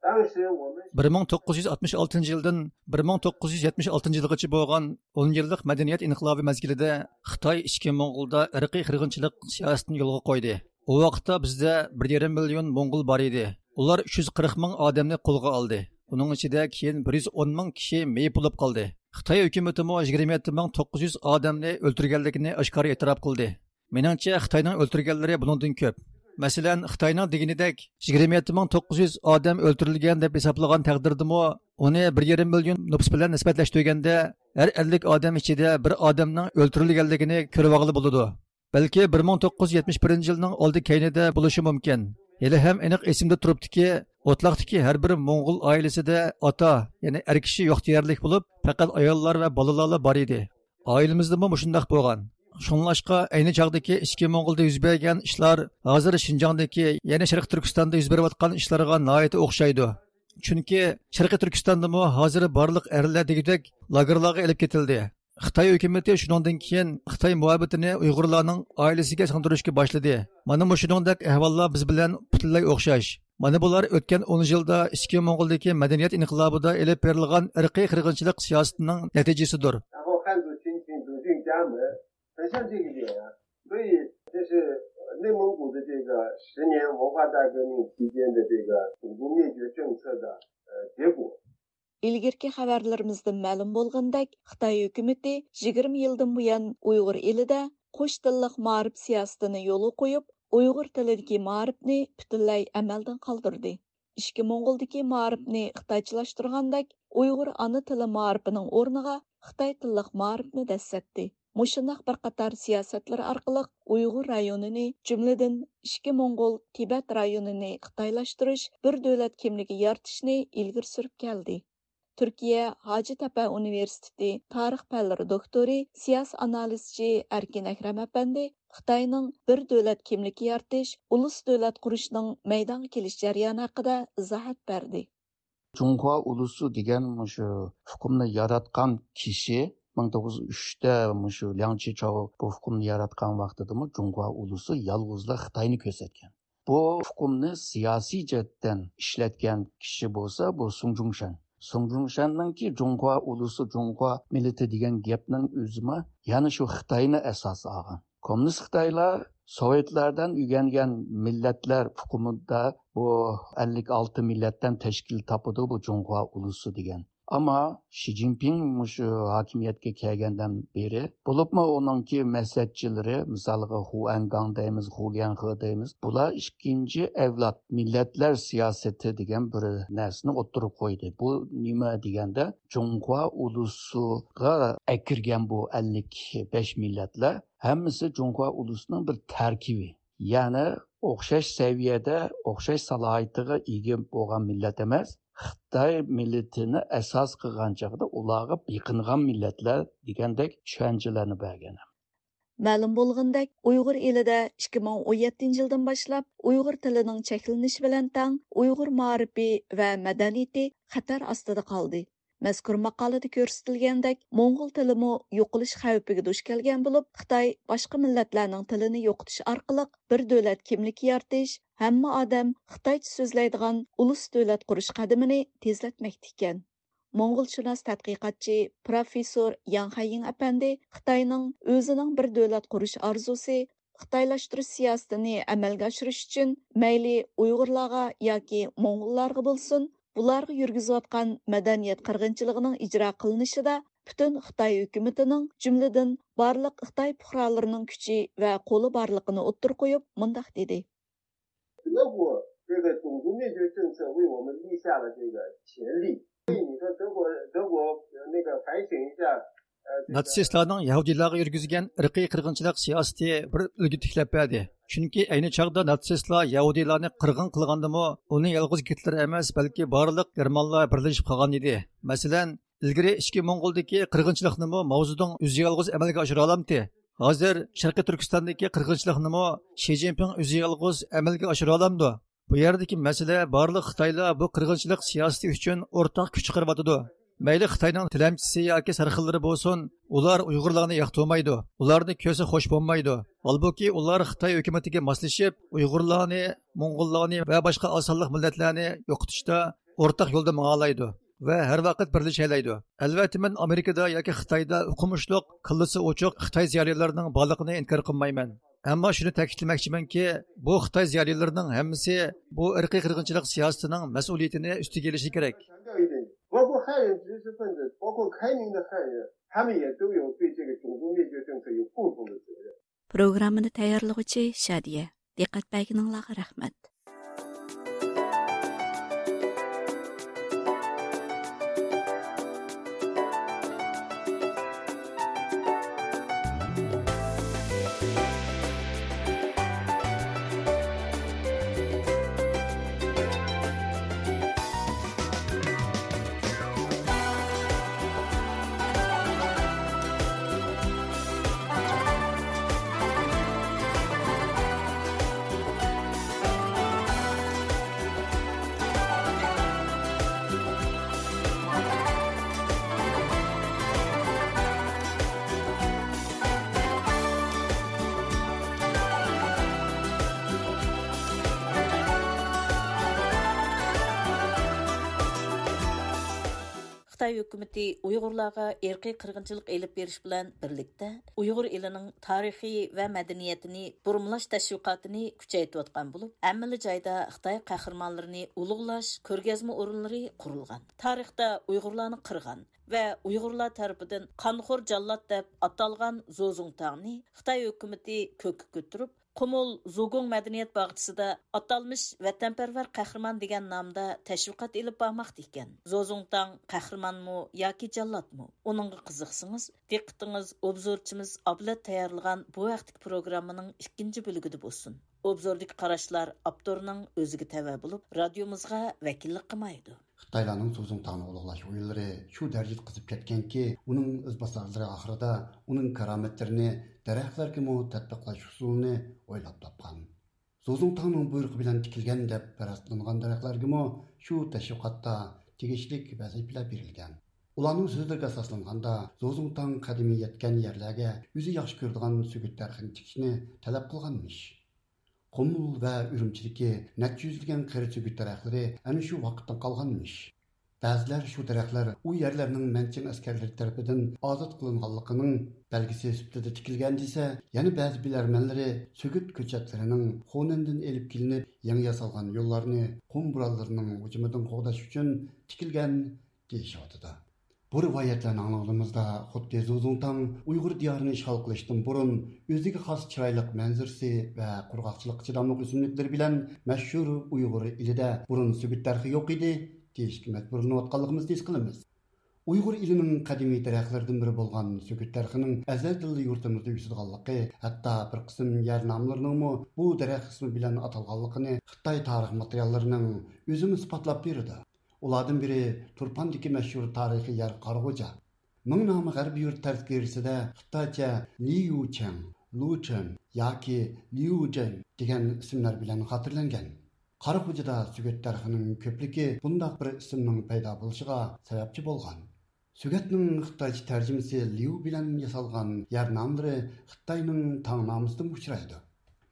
当时我们 بىر مىڭ توققۇز يۈز ئاتمىش ئالتىنچى يىلدىن بىر مىڭ توققۇز يۈز يەتمىش ئالتىنچى يىلغىچە بولغان ئون يىللىق مەدەنىيەت ئىنقىلابى مەزگىلىدە خىتاي ئىچكى موڭغۇلدا ئىرقىي قىرغىنچىلىق سىياسىتىنى يولغا قويدى. ئۇ ۋاقىتتا بىزدە بىر يېرىم مىليون موڭغۇل بار ئىدى. ئۇلار ئۈچ يۈز قىرىق مىڭ ئادەمنى قولغا ئالدى. ئۇنىڭ ئىچىدە كېيىن بىر يۈز ئون مىڭ كىشى مېيىپ بولۇپ قالدى. خىتاي ھۆكۈمىتىمۇ يىگىرمە يەتتە مىڭ توققۇز يۈز ئادەمنى ئۆلتۈرگەنلىكىنى ئاشكارا ئېتىراپ قىلدى. مېنىڭچە، خىتاينىڭ ئۆلتۈرگەنلىرى بۇنىڭدىن كۆپ. مەسىلەن، خىتاينىڭ دېگىنىدەك يىگىرمە يەتتە مىڭ توققۇز يۈز ئادەم ئۆلتۈرۈلگەن دەپ ھېسابلىغان تەقدىردىمۇ، ئۇنى بىر يېرىم مىليون نوپۇس بىلەن نىسبەتلەشتۈرگەندە، ھەر ئەللىك ئادەم ئىچىدە بىر ئادەمنىڭ ئۆلتۈرۈلگەنلىكىنى كۆرۈۋالغىلى بولىدۇ. بەلكى بىر مىڭ توققۇز يۈز يەتمىش بىرىنچى يىلنىڭ ئالدى كەينىدە بولۇشى مۇمكىن. ھېلىھەم ئېنىق ئېسىمدە تۇرۇپتۇكى، ئوتلاقتىكى ھەر بىر موڭغۇل ئائىلىسىدە ئاتا، يەنى ئەر كىشى يوق دېيەرلىك بولۇپ، پەقەت ئاياللار ۋە بالىلارلا بار ئىدى. ئائىلىمىزدىمۇ مۇشۇنداق بولغان. شۇڭلاشقا، ئەينى چاغدىكى ئىچكى موڭغۇلدا يۈز بەرگەن ئىشلار ھازىر شىنجاڭدىكى، يەنى شەرقىي تۈركىستاندا يۈز بېرىۋاتقان ئىشلارغا ناھايىتى ئوخشايدۇ. چۈنكى شەرقىي تۈركىستاندىمۇ ھازىر بارلىق ئەرلەر دېگۈدەك لاگېرلارغا ئېلىپ كېتىلدى. خىتاي ھۆكۈمىتى شۇنىڭدىن كېيىن خىتاي مۇھەببىتىنى ئۇيغۇرلارنىڭ ئائىلىسىگە سىڭدۈرۈشكە باشلىدى. مانا مۇشۇنىڭدەك ئەھۋاللار بىز بىلەن پۈتۈنلەي ئوخشاش. مانا بۇلار ئۆتكەن ئون يىلدا ئىچكى موڭغۇلدىكى مەدەنىيەت ئىنقىلابىدا ئېلىپ بېرىلغان ئىرقىي قىرغىنچىلىق سىياسىتىنىڭ نەتىجىسىدۇر. 然后汉族群体走进家门，很像这个点啊。所以这是内蒙古的这个十年文化大革命期间的这个种族灭绝政策的呃结果。 ئىلگىرىكى خەۋەرلىرىمىزدىن مەلۇم بولغىنىدەك، خىتاي ھۆكۈمىتى يىگىرمە يىلدىن بۇيان ئۇيغۇر ئېلىدە قوش تىللىق مائارىپ سىياسىتىنى يولغا قويۇپ، ئۇيغۇر تىلىدىكى مائارىپنى پۈتۈنلەي ئەمەلدىن قالدۇردى. ئىچكى موڭغۇلدىكى مائارىپنى خىتايچىلاشتۇرغاندەك، ئۇيغۇر ئانا تىلى مائارىپىنىڭ ئورنىغا خىتاي تىللىق مائارىپنى دەسسەتتى. مۇشۇنداق بىر قاتار سىياسەتلىرى ئارقىلىق ئۇيغۇر رايونىنى، جۈملىدىن ئىچكى موڭغۇل، تىبەت رايونىنى خىتايلاشتۇرۇش، بىر دۆلەت كىملىكى يارىتىشنى ئىلگىرى سۈرۈپ كەلدى. تۈركىيە ھاجىتەپە ئۇنىۋېرسىتېتى تارىخ پەنلىرى دوكتورى، سىياسىي ئانالىزچى ئەركىن ئەكرەم ئەپەندى خىتاينىڭ بىر دۆلەت كىملىكى يارىتىش، ئۇلۇس دۆلەت قۇرۇشنىڭ مەيدانغا كېلىش جەريانى ھەققىدە ئىزاھات بەردى. جۇڭخۇا ئۇلۇسى دېگەن مۇشۇ ئۇقۇمنى ياراتقان كىشى مىڭ توققۇز يۈز ئۈچتە مۇشۇ لياڭ چىچاۋ بۇ ئۇقۇمنى ياراتقان ۋاقتىدىمۇ جۇڭخۇا ئۇلۇسى يالغۇزلا خىتاينى كۆرسەتكەن. بۇ ئۇقۇمنى سىياسىي جەھەتتىن ئىشلەتكەن كىشى بولسا بۇ سۇڭ جۇڭشەن. سۇڭ جۇڭشەننىڭكى جۇڭخۇا ئۇلۇسى، جۇڭخۇا مىللىتى دېگەن گەپنىڭ ئۆزىمۇ يەنە شۇ خىتاينى ئاساس ئالغان. كوممۇنىست خىتايلار سوۋېتلاردىن ئۆگەنگەن مىللەتلەر ئۇقۇمىدا بۇ ئەللىك ئالتە مىللەتتىن تەشكىل تاپىدۇ بۇ جۇڭخۇا ئۇلۇسى دېگەن. ئەمما شى جىنپىڭ مۇشۇ ھاكىمىيەتكە كەلگەندىن بېرى، بولۇپمۇ ئۇنىڭكى مەسلىھەتچىلىرى، مىسالغا، خۇ ئەنگاڭ دەيمىز، خۇ ليەنخې دەيمىز، بۇلار ئىككىنچى ئەۋلاد مىللەتلەر سىياسىتى دېگەن بىر نەرسىنى ئوتتۇرىغا قويدى. بۇ نېمە دېگەندە، جۇڭخۇا ئۇلۇسىغا ئەكىرگەن بۇ ئەللىك بەش مىللەتلەر ھەممىسى جۇڭخۇا ئۇلۇسىنىڭ بىر تەركىبى. يەنى ئوخشاش سەۋىيەدە، ئوخشاش سالاھىيىتىگە ئىگە بولغان مىللەت ئەمەس، خىتاي مىللىتىنى ئاساس قىلغان چاغدا ئۇلارغا بېقىنغان مىللەتلەر دېگەندەك چۈشەنچىلەرنى بەرگەن. مەلۇم بولغىنىدەك، ئۇيغۇر ئېلىدە ئىككى مىڭ ئون يەتتىنچى يىلدىن باشلاپ ئۇيغۇر تىلىنىڭ چەكلىنىشى بىلەن تەڭ ئۇيغۇر مائارىپى ۋە مەدەنىيىتى خەتەر ئاستىدا قالدى. مەزكۇر ماقالىدە كۆرسىتىلگەندەك، موڭغۇل تىلىمۇ يوقىلىش خەۋپىگە دۇچ كەلگەن بولۇپ، خىتاي باشقا مىللەتلەرنىڭ تىلىنى يوقىتىش ئارقىلىق بىر دۆلەت كىملىكى يارىتىش، ھەممە ئادەم خىتايچە سۆزلەيدىغان ئۇلۇس دۆلەت قۇرۇش قەدىمىنى تېزلەتمەكتە ئىكەن. موڭغۇلشۇناس تەتقىقاتچى پروفېسسور ياڭ خەييىڭ ئەپەندى خىتاينىڭ ئۆزىنىڭ بىر دۆلەت قۇرۇش ئارزۇسى، خىتايلاشتۇرۇش سىياسىتىنى ئەمەلگە ئاشۇرۇش ئۈچۈن مەيلى ئۇيغۇرلارغا ياكى موڭغۇللارغا بولسۇن، بۇلارغا يۈرگۈزۈۋاتقان مەدەنىيەت قىرغىنچىلىقىنىڭ ئىجرا قىلىنىشىدا پۈتۈن خىتاي ھۆكۈمىتىنىڭ، جۈملىدىن بارلىق خىتاي پۇقرالىرىنىڭ كۈچى ۋە قولى بارلىقىنى ئوتتۇرىغا قويۇپ، مۇنداق دېدى. 德国这个种族灭绝政策为我们立下了这个前例。所以你说德国，德国，呃，那个反省一下，呃，这个 ناتسىستلارنىڭ يەھۇدىيلارغا يۈرگۈزگەن ئىرقىي قىرغىنچىلىق سىياسىتى بىر ئۈلگە تىكلەپ بەردى. چۈنكى ئەينى چاغدا ناتسىستلار يەھۇدىيلارنى قىرغىن قىلغاندىمۇ، ئۇنى يالغۇز گىتلېر ئەمەس، بەلكى بارلىق گېرمانلار بىرلىشىپ قىلغان ئىدى. مەسىلەن، ئىلگىرى ئىچكى موڭغۇلدىكى قىرغىنچىلىقنىمۇ ماۋزېدۇڭ ئۆزى يالغۇز ئەمەلگە ئاشۇرالامتى؟ ھازىر شەرقىي تۈركىستاندىكى قىرغىنچىلىقنىمۇ شى جىنپىڭ ئۆزى يالغۇز ئەمەلگە ئاشۇرالامدۇ؟ بۇ يەردىكى مەسىلە، بارلىق خىتايلار بۇ قىرغىنچىلىق سىياسىتى ئۈچۈن ئورتاق كۈچ چىقىرىۋاتىدۇ. مەيلى خىتاينىڭ تىلەمچىسى ياكى سەرخىللىرى بولسۇن، ئۇلار ئۇيغۇرلارنى ياقتۇرمايدۇ، ئۇلارنى كۆرسە خوش بولمايدۇ. ھالبۇكى، ئۇلار خىتاي ھۆكۈمىتىگە ماسلىشىپ، ئۇيغۇرلارنى، موڭغۇللارنى ۋە باشقا ئاز سانلىق مىللەتلەرنى يوقىتىشتا ئورتاق يولدا ماڭالايدۇ ۋە ھەر ۋاقىت بىرلىشەلەيدۇ. ئەلۋەتتە، مەن ئامېرىكىدا ياكى خىتايدا ئوقۇمۇشلۇق، كاللىسى ئوچۇق خىتاي زىيالىيلىرىنىڭ بارلىقىنى ئىنكار قىلمايمەن. ئەمما شۇنى تەكىتلىمەكچىمەنكى، بۇ خىتاي زىيالىيلىرىنىڭ ھەممىسى بۇ ئىرقىي قىرغىنچىلىق سىياسىتىنىڭ مەسئۇلىيىتىنى ئۈستىگە ئېلىشى كېرەك. 包括汉人知识分子，包括开明的汉人，他们也都有对这个种族灭绝政策有共同的责任。 پروگراممىنى تەييارلىغۇچى شادىيە. دىققەت بەرگىنىڭلارغا رەھمەت. خىتاي ھۆكۈمىتى ئۇيغۇرلارغا ئىرقىي قىرغىنچىلىق ئېلىپ بېرىش بىلەن بىرلىكتە، ئۇيغۇر ئېلىنىڭ تارىخى ۋە مەدەنىيىتىنى بۇرمىلاش تەشۋىقاتىنى كۈچەيتىۋاتقان بولۇپ، ھەممىلا جايدا خىتاي قەھرىمانلىرىنى ئۇلۇغلاش كۆرگەزمە ئورۇنلىرى قۇرۇلغان. تارىختا ئۇيغۇرلارنى قىرغان ۋە ئۇيغۇرلار تەرىپىدىن قانخور جاللات دەپ ئاتالغان زوزۇڭتاڭنى خىتاي ھۆكۈمىتى كۆككە كۆتۈرۈپ، قۇمۇل زۇگۇڭ مەدەنىيەت باغچىسىدا ئاتالمىش ۋەتەنپەرۋەر قەھرىمان دېگەن نامدا تەشۋىقات ئېلىپ بارماقتا ئىكەن. زوزۇڭتاڭ قەھرىمانمۇ ياكى جاللاتمۇ؟ ئۇنىڭغا قىزىقسىڭىز، دىققىتىڭىز ئوبزورچىمىز ئابلەت تەييارلىغان بۇ ھەقتىكى پروگراممىنىڭ ئىككىنچى بۆلىكىدە بولسۇن. ئوبزوردىكى قاراشلار ئاپتورنىڭ ئۆزىگە تەۋە بولۇپ، رادىيومىزغا ۋەكىللىك قىلمايدۇ. خىتايلارنىڭ زۇزۇڭتاڭنى ئۇلۇغلاش ئويلىرى شۇ دەرىجىدە قىزىپ كەتكەنكى، ئۇنىڭ ئىزباسارلىرى ئاخىرىدا ئۇنىڭ كارامەتلىرىنى دەرەخلەرگىمۇ تەتبىقلاش ئۇسۇلىنى ئويلاپ تاپقان. زۇزۇڭتاڭنىڭ بۇيرۇقى بىلەن تىكىلگەن دەپ پەرەز قىلىنغان دەرەخلەرگىمۇ شۇ تەشۋىقاتتا تېگىشلىك ۋەزىپىلەر بېرىلگەن. ئۇلارنىڭ سۆزلىرىگە ئاساسلانغاندا، زۇزۇڭتاڭ قەدىمىي يەتكەن يەرلەرگە ئۆزى ياخشى كۆرىدىغان سۆگۈت دەرىخىنى تىكىشنى تەلەپ قىلغانمىش. قۇمۇل ۋە ئۈرۈمچىدىكى نەچچە يۈزلىگەن قېرى سۆگۈت دەرەخلىرى ئەنە شۇ ۋاقىتتىن قالغانمىش. بەزىلەر شۇ دەرەخلەر ئۇ يەرلەرنىڭ مەنچىڭ ئەسكەرلىرى تەرىپىدىن ئازاد قىلىنغانلىقىنىڭ بەلگىسى سۈپىتىدە تىكىلگەن دېسە، يەنە بەزى بىلەرمەنلىرى سۆگۈت كۆچەتلىرىنىڭ خۇنەندىن ئېلىپ كېلىنىپ يېڭى ياسالغان يوللارنى قۇم بورانلىرىنىڭ ھۇجۇمىدىن قوغداش ئۈچۈن تىكىلگەن دېيىشىۋاتىدۇ. بۇ رىۋايەتلەرنى ئاڭلىغىنىمىزدا، خۇددى زۇزۇڭتاڭ ئۇيغۇر دىيارىنى ئىشغال قىلىشتىن بۇرۇن ئۆزىگە خاس چىرايلىق مەنزىرىسى ۋە قۇرغاقچىلىققا چىداملىق ئۆسۈملۈكلىرى بىلەن مەشھۇر ئۇيغۇر ئېلىدە بۇرۇن سۆگۈت دەرىخى يوق ئىدى، دېيىشكە مەجبۇرلىنىۋاتقانلىقىمىزنى ھېس قىلىمىز. ئۇيغۇر ئېلىنىڭ قەدىمىي دەرەخلىرىدىن بىرى بولغان سۆگۈت دەرىخىنىڭ ئەزەلدىنلا يۇرتىمىزدا ئۆسىدىغانلىقى، ھەتتا بىر قىسىم يەر ناملىرىنىڭمۇ بۇ دەرەخ ئىسمى بىلەن ئاتالغانلىقىنى خىتاي تارىخ ماتېرىياللىرىنىڭ ئۆزىمۇ ئىسپاتلاپ بېرىدۇ. ئۇلاردىن بىرى تۇرپاندىكى مەشھۇر تارىخىي يەر قاراغۇجا. مىڭ نامى غەربىي يۇرت تەزكىرىسىدە خىتايچە ليۇچېڭ، لۇچېن ياكى ليۇجېن دېگەن ئىسىملار بىلەن خاتىرىلەنگەن. قاراخوجىدا سۆگەت دەرىخىنىڭ كۆپلۈكى بۇنداق بىر ئىسىمنىڭ پەيدا بولۇشىغا سەۋەبچى بولغان. سۆگەتنىڭ خىتايچە تەرجىمىسى ليۇ بىلەن ياسالغان يەر ناملىرى خىتاينىڭ تاڭنامىسىدىمۇ ئۇچرايدۇ.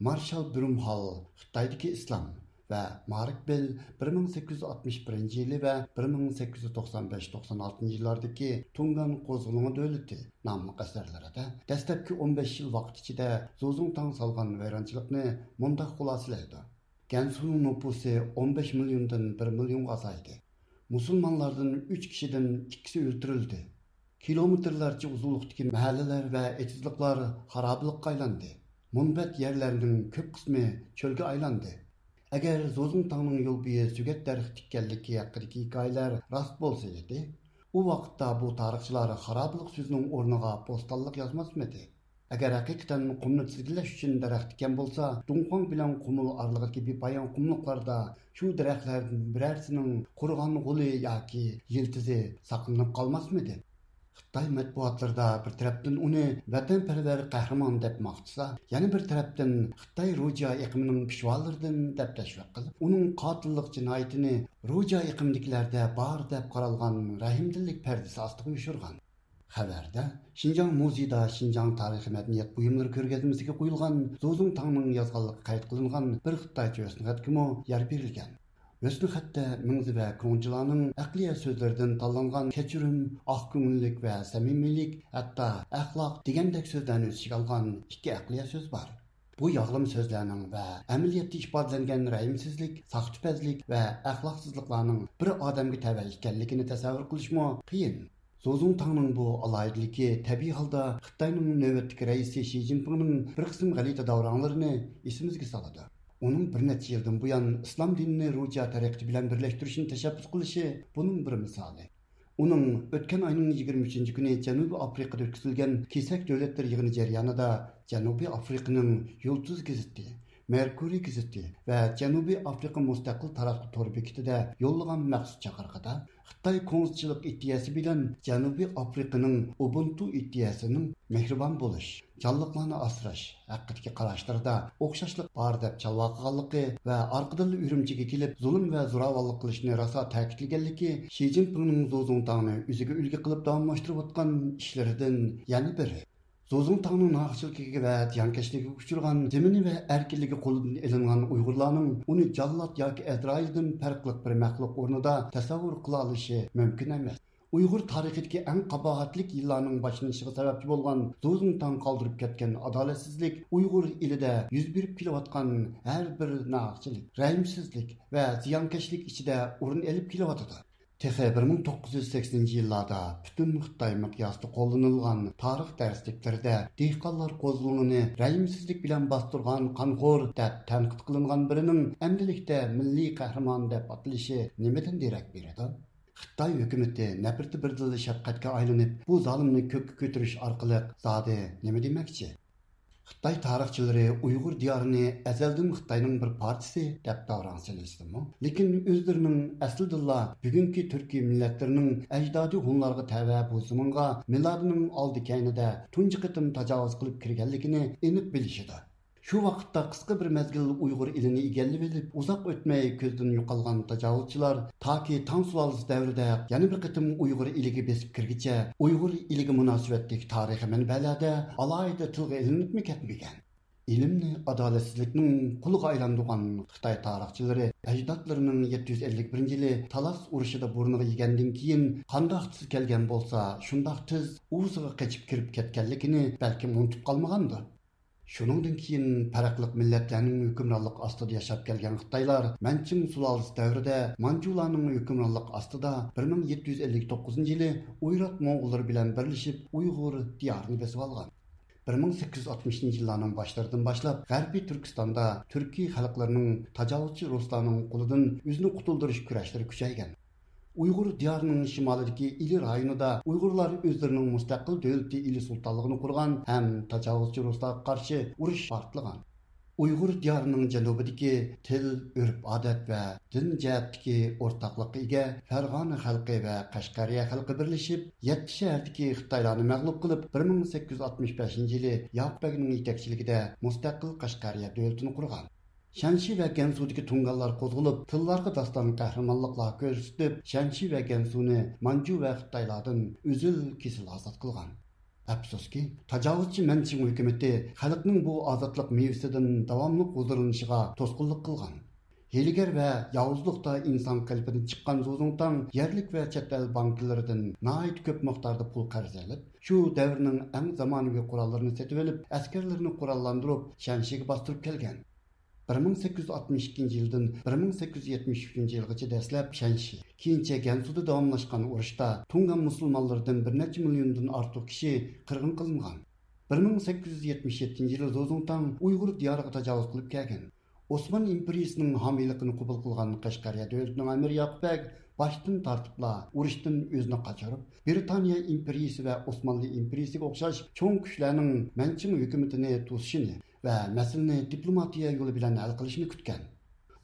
مارشال برۇمھال خىتايدىكى ئىسلام ۋە مارك بېل بىر مىڭ سەككىز يۈز ئاتمىش بىرىنچى يىلى ۋە بىر مىڭ سەككىز يۈز توقسان بەش توقسان ئالتىنچى يىللاردىكى تۇڭگان قوزغىلىڭى دۆلىتى ناملىق ئەسەرلىرىدە دەسلەپكى ئون بەش يىل ۋاقىت ئىچىدە زۇزۇڭتاڭ سالغان ۋەيرانچىلىقنى مۇنداق خۇلاسىلەيدۇ. گەنسۇنىڭ نوپۇسى ئون بەش مىليوندىن بىر مىليونغا ئازايدى. مۇسۇلمانلاردىن ئۈچ كىشىدىن ئىككىسى ئۆلتۈرۈلدى. كىلومېتىرلارچە ئۇزۇنلۇقتىكى مەھەللىلەر ۋە ئېتىزلىقلار خارابىلىققا ئايلاندى. مۇنبەت يەرلەرنىڭ كۆپ قىسمى چۆلگە ئايلاندى. ئەگەر زوزۇڭتاڭنىڭ يول بويى سۆگەت دەرىخى تىككەنلىكى ھەققىدىكى ھېكايىلەر راست بولسا ئىدى، ئۇ ۋاقىتتا بۇ تارىخچىلار خارابىلىق سۆزىنىڭ ئورنىغا بوستانلىق يازماسمىدى؟ ئەگەر ھەقىقەتەن قۇمنى تىزگىنلەش ئۈچۈن دەرەخ تىككەن بولسا، دۇڭخۇاڭ بىلەن قۇمۇل ئارىلىقىدىكى بىپايان قۇملۇقلاردا شۇ دەرەخلەردىن بىرەرسىنىڭ قۇرۇغان غولى ياكى يىلتىزى ساقلىنىپ قالماسمىدى؟ خىتاي مەتبۇئاتلىرىدا بىر تەرەپتىن ئۇنى ۋەتەنپەرۋەر قەھرىمان دەپ ماختىسا، يەنە بىر تەرەپتىن خىتاي روجيا ئېقىمىنىڭ پىشۋالىرىدىن دەپ تەشۋىق قىلىپ، ئۇنىڭ قاتىللىق جىنايىتىنى روجيا ئېقىمىدىكىلەردە بار دەپ قارالغان رەھىمدىللىك پەردىسى ئاستىغا يوشۇرغان. خەۋەردە شىنجاڭ مۇزېيىدا شىنجاڭ تارىخىي مەدەنىيەت بۇيۇملىرى كۆرگەزمىسىگە قويۇلغان زۇزۇڭتاڭنىڭ يازغانلىقى قەيت قىلىنغان بىر خىتايچە ھۆسنخەتكىمۇ يەر بېرىلگەن. ھۆسنخەتتە مىڭزى ۋە كۇڭجىلانىڭ ئەقلىيە سۆزلىرىدىن تاللانغان كەچۈرۈم، ئاق كۆڭۈللۈك ۋە سەمىمىيلىك، ھەتتا ئەخلاق دېگەندەك سۆزلەرنى ئۆز ئىچىگە ئالغان ئىككى ئەقلىيە سۆز بار. بۇ ياغلىما سۆزلەرنىڭ ۋە ئەمەلىيەتتە ئىپادىلەنگەن رەھىمسىزلىك، ساختىپەزلىك ۋە ئەخلاقسىزلىقلارنىڭ بىر ئادەمگە تەۋە ئىكەنلىكىنى تەسەۋۋۇر قىلىشمۇ قىيىن. زوزۇڭتاڭنىڭ بۇ ئالاھىدىلىكى تەبىئىي ھالدا خىتاينىڭ نۆۋەتتىكى رەئىسى شى جىنپىڭنىڭ بىر قىسىم غەلىتە داۋراڭلىرىنى ئېسىمىزگە سالىدۇ. ئۇنىڭ بىر نەچچە يىلدىن بۇيان ئىسلام دىنىنى روجيا تەرىقىتى بىلەن بىرلەشتۈرۈشنى تەشەببۇس قىلىشى بۇنىڭ بىر مىسالى. ئۇنىڭ ئۆتكەن ئاينىڭ يىگىرمە ئۈچىنچى كۈنى جەنۇبىي ئافرىقىدا ئۆتكۈزۈلگەن كېسەك دۆلەتلەر يىغىنى جەريانىدا جەنۇبىي ئافرىقىنىڭ يۇلتۇز گېزىتى، مېركۇرىي گېزىتى ۋە جەنۇبىي ئافرىقا مۇستەقىل تاراتقۇ تور بېكىتىدە يوللىغان مەخسۇس چاقىرىقىدا، خىتاي كوڭزىچىلىق ئىدىيەسى بىلەن جەنۇبىي ئافرىقىنىڭ ئۇبۇنتۇ ئىدىيەسىنىڭ مېھرىبان بولۇش، جانلىقلارنى ئاسراش ھەققىدىكى قاراشلىرىدا ئوخشاشلىق بار دەپ چالۋاقىغانلىقى ۋە ئارقىدىنلا ئۈرۈمچىگە كېلىپ زۇلۇم ۋە زوراۋانلىق قىلىشنى راسا تەكىتلىگەنلىكى شى جىنپىڭنىڭ زوزۇڭتاڭنى ئۆزىگە ئۈلگە قىلىپ داۋاملاشتۇرۇۋاتقان ئىشلىرىدىن يەنە بىرى. زوزۇڭتاڭنىڭ ناھەقچىلىكىگە ۋە زىيانكەشلىكىگە ئۇچرىغان، زېمىنى ۋە ئەركىنلىكى قولىدىن ئېلىنغان ئۇيغۇرلارنىڭ ئۇنى جاللات ياكى ئەزرائىلدىن پەرقلىق بىر مەخلۇق ئورنىدا تەسەۋۋۇر قىلالىشى مۇمكىن ئەمەس. ئۇيغۇر تارىخىدىكى ئەڭ قاباھەتلىك يىللارنىڭ باشلىنىشىغا سەۋەبچى بولغان زوزۇڭتاڭ قالدۇرۇپ كەتكەن ئادالەتسىزلىك ئۇيغۇر ئېلىدە يۈز بېرىپ كېلىۋاتقان ھەر بىر ناھەقچىلىك، رەھىمسىزلىك ۋە زىيانكەشلىك ئىچىدە ئورۇن ئېلىپ كېلىۋاتىدۇ. تېخى بىر مىڭ توققۇز يۈز سەكسىنىنچى يىللاردا پۈتۈن خىتاي مىقياسىدا قوللىنىلغان تارىخ دەرسلىكلىرىدە دېھقانلار قوزغىلىڭىنى رەھىمسىزلىك بىلەن باستۇرغان قانخور دەپ تەنقىد قىلىنغان بىرىنىڭ ئەمدىلىكتە مىللىي قەھرىمان دەپ ئاتىلىشى نېمىدىن دېرەك بېرىدۇ؟ خىتاي ھۆكۈمىتى نەپرىتى بىردىنلا شەپقەتكە ئايلىنىپ، بۇ زالىمنى كۆككە كۆتۈرۈش ئارقىلىق زادى نېمە دېمەكچى؟ خىتاي تارىخچىلىرى ئۇيغۇر دىيارىنى ئەزەلدىن خىتاينىڭ بىر پارچىسى دەپ داۋراڭ سېلىشسىمۇ، لېكىن ئۆزلىرىنىڭ ئەسلىدىنلا بۈگۈنكى تۈركىي مىللەتلىرىنىڭ ئەجدادى ھونلارغا تەۋە بۇ زېمىنغا مىلادىنىڭ ئالدى كەينىدە تۇنجى قېتىم تاجاۋۇز قىلىپ كىرگەنلىكىنى ئېنىق بىلىشىدۇ. شۇ ۋاقىتتا قىسقا بىر مەزگىل ئۇيغۇر ئېلىنى ئىگىلىۋېلىپ، ئۇزاق ئۆتمەي كۆزدىن يوقالغان تاجاۋۇزچىلار تاكى تاڭ سۇلالىسى دەۋرىدە يەنە بىر قېتىم ئۇيغۇر ئېلىگە بېسىپ كىرگىچە، ئۇيغۇر ئېلىگە مۇناسىۋەتلىك تارىخىي مەنبەلەردە ئالاھىدە تىلغا ئېلىنىپمۇ كەتمىگەن. ئىلىمنى ئادالەتسىزلىكنىڭ قۇلىغا ئايلاندۇرغان خىتاي تارىخچىلىرى ئەجدادلىرىنىڭ يەتتە يۈز ئەللىك بىرىنچى يىلى تالاس ئۇرۇشىدا بۇرنىغا يېگەندىن كېيىن، قانداق تېز كەلگەن بولسا، شۇنداق تېز ئۇۋىسىغا قېچىپ كىرىپ كەتكەنلىكىنى بەلكىم ئۇنتۇپ قالمىغاندۇ. شۇنىڭدىن كېيىن پەرقلىق مىللەتلەرنىڭ ھۆكۈمرانلىقى ئاستىدا ياشاپ كەلگەن خىتايلار مەنچىڭ سۇلالىسى دەۋرىدە مانجۇلارنىڭ ھۆكۈمرانلىقى ئاستىدا بىر مىڭ يەتتە يۈز ئەللىك توققۇزىنچى يىلى ئويرات موڭغۇللىرى بىلەن بىرلىشىپ ئۇيغۇر دىيارىنى بېسىۋالغان. بىر مىڭ سەككىز يۈز ئاتمىشىنچى يىللارنىڭ باشلىرىدىن باشلاپ غەربىي تۈركىستاندا تۈركىي خەلقلەرنىڭ تاجاۋۇزچى رۇسلارنىڭ قولىدىن ئۆزىنى قۇتۇلدۇرۇش كۈرەشلىرى كۈچەيگەن. ئۇيغۇر دىيارىنىڭ شىمالىدىكى ئىلى رايونىدا ئۇيغۇرلار ئۆزلىرىنىڭ مۇستەقىل دۆلىتى، ئىلى سۇلتانلىقىنى قۇرغان ھەم تاجاۋۇزچى رۇسلارغا قارشى ئۇرۇش پارتلىغان. ئۇيغۇر دىيارىنىڭ جەنۇبىدىكى تىل، ئۆرپ-ئادەت ۋە دىن جەھەتتىكى ئورتاقلىققا ئىگە فەرغانە خەلقى ۋە قەشقەرىيە خەلقى بىرلىشىپ، يەتتە شەھەردىكى خىتايلارنى مەغلۇپ قىلىپ، بىر مىڭ سەككىز يۈز ئاتمىش بەشىنچى يىلى ياقۇپ بەگنىڭ يېتەكچىلىكىدە مۇستەقىل قەشقەرىيە دۆلىتىنى قۇرغان. شەنشى ۋە گەنسۇدىكى تۇڭگانلار قوزغىلىپ، تىللارغا داستان قەھرىمانلىقلار كۆرسىتىپ، شەنشى ۋە گەنسۇنى مانجۇ ۋە خىتايلاردىن ئۈزۈل-كېسىل ئازاد قىلغان. ئەپسۇسكى، تاجاۋۇزچى مەنچىڭ ھۆكۈمىتى خەلقنىڭ بۇ ئازادلىق مېۋىسىدىن داۋاملىق ھۇزۇرلىنىشىغا توسقۇنلۇق قىلغان. ھىيلىگەر ۋە ياۋۇزلۇقتا ئىنسان قېلىپىدىن چىققان زۇزۇڭتاڭ يەرلىك ۋە چەت ئەل بانكىلىرىدىن ناھايىتى كۆپ مىقداردا پۇل قەرز ئېلىپ، شۇ دەۋرنىڭ ئەڭ زامانىۋى قوراللىرىنى سېتىۋېلىپ، ئەسكەرلىرىنى قوراللاندۇرۇپ، شەنشىگە باستۇرۇپ كەلگەن. بىر مىڭ سەككىز يۈز ئاتمىش ئىككىنچى يىلدىن بىر مىڭ سەككىز يۈز يەتمىش ئۈچىنچى يىلغىچە دەسلەپ شەنشى، كېيىنچە گەنسۇدا داۋاملاشقان ئۇرۇشتا تۇڭگان مۇسۇلمانلىرىدىن بىر نەچچە مىليوندىن ئارتۇق كىشى قىرغىن قىلىنغان. بىر مىڭ سەككىز يۈز يەتمىش يەتتىنچى يىلى زۇزۇڭتاڭ ئۇيغۇر دىيارىغا تاجاۋۇز قىلىپ كەلگەن. ئوسمان ئىمپېرىيىسىنىڭ ھامىيلىقىنى قوبۇل قىلغان قەشقەرىيە دۆلىتىنىڭ ئەمىرى ياقۇپ بەگ باشتىن تارتىپلا ئۇرۇشتىن ئۆزىنى قاچۇرۇپ، بىرىتانىيە ئىمپېرىيىسى ۋە ئوسمانلى ئىمپېرىيىسىگە ئوخشاش چوڭ كۈچلەرنىڭ مەنچىڭ ھۆكۈمىتىنى توسۇشىنى ۋە مەسىلىنى دىپلوماتىيە يولى بىلەن ھەل قىلىشنى كۈتكەن.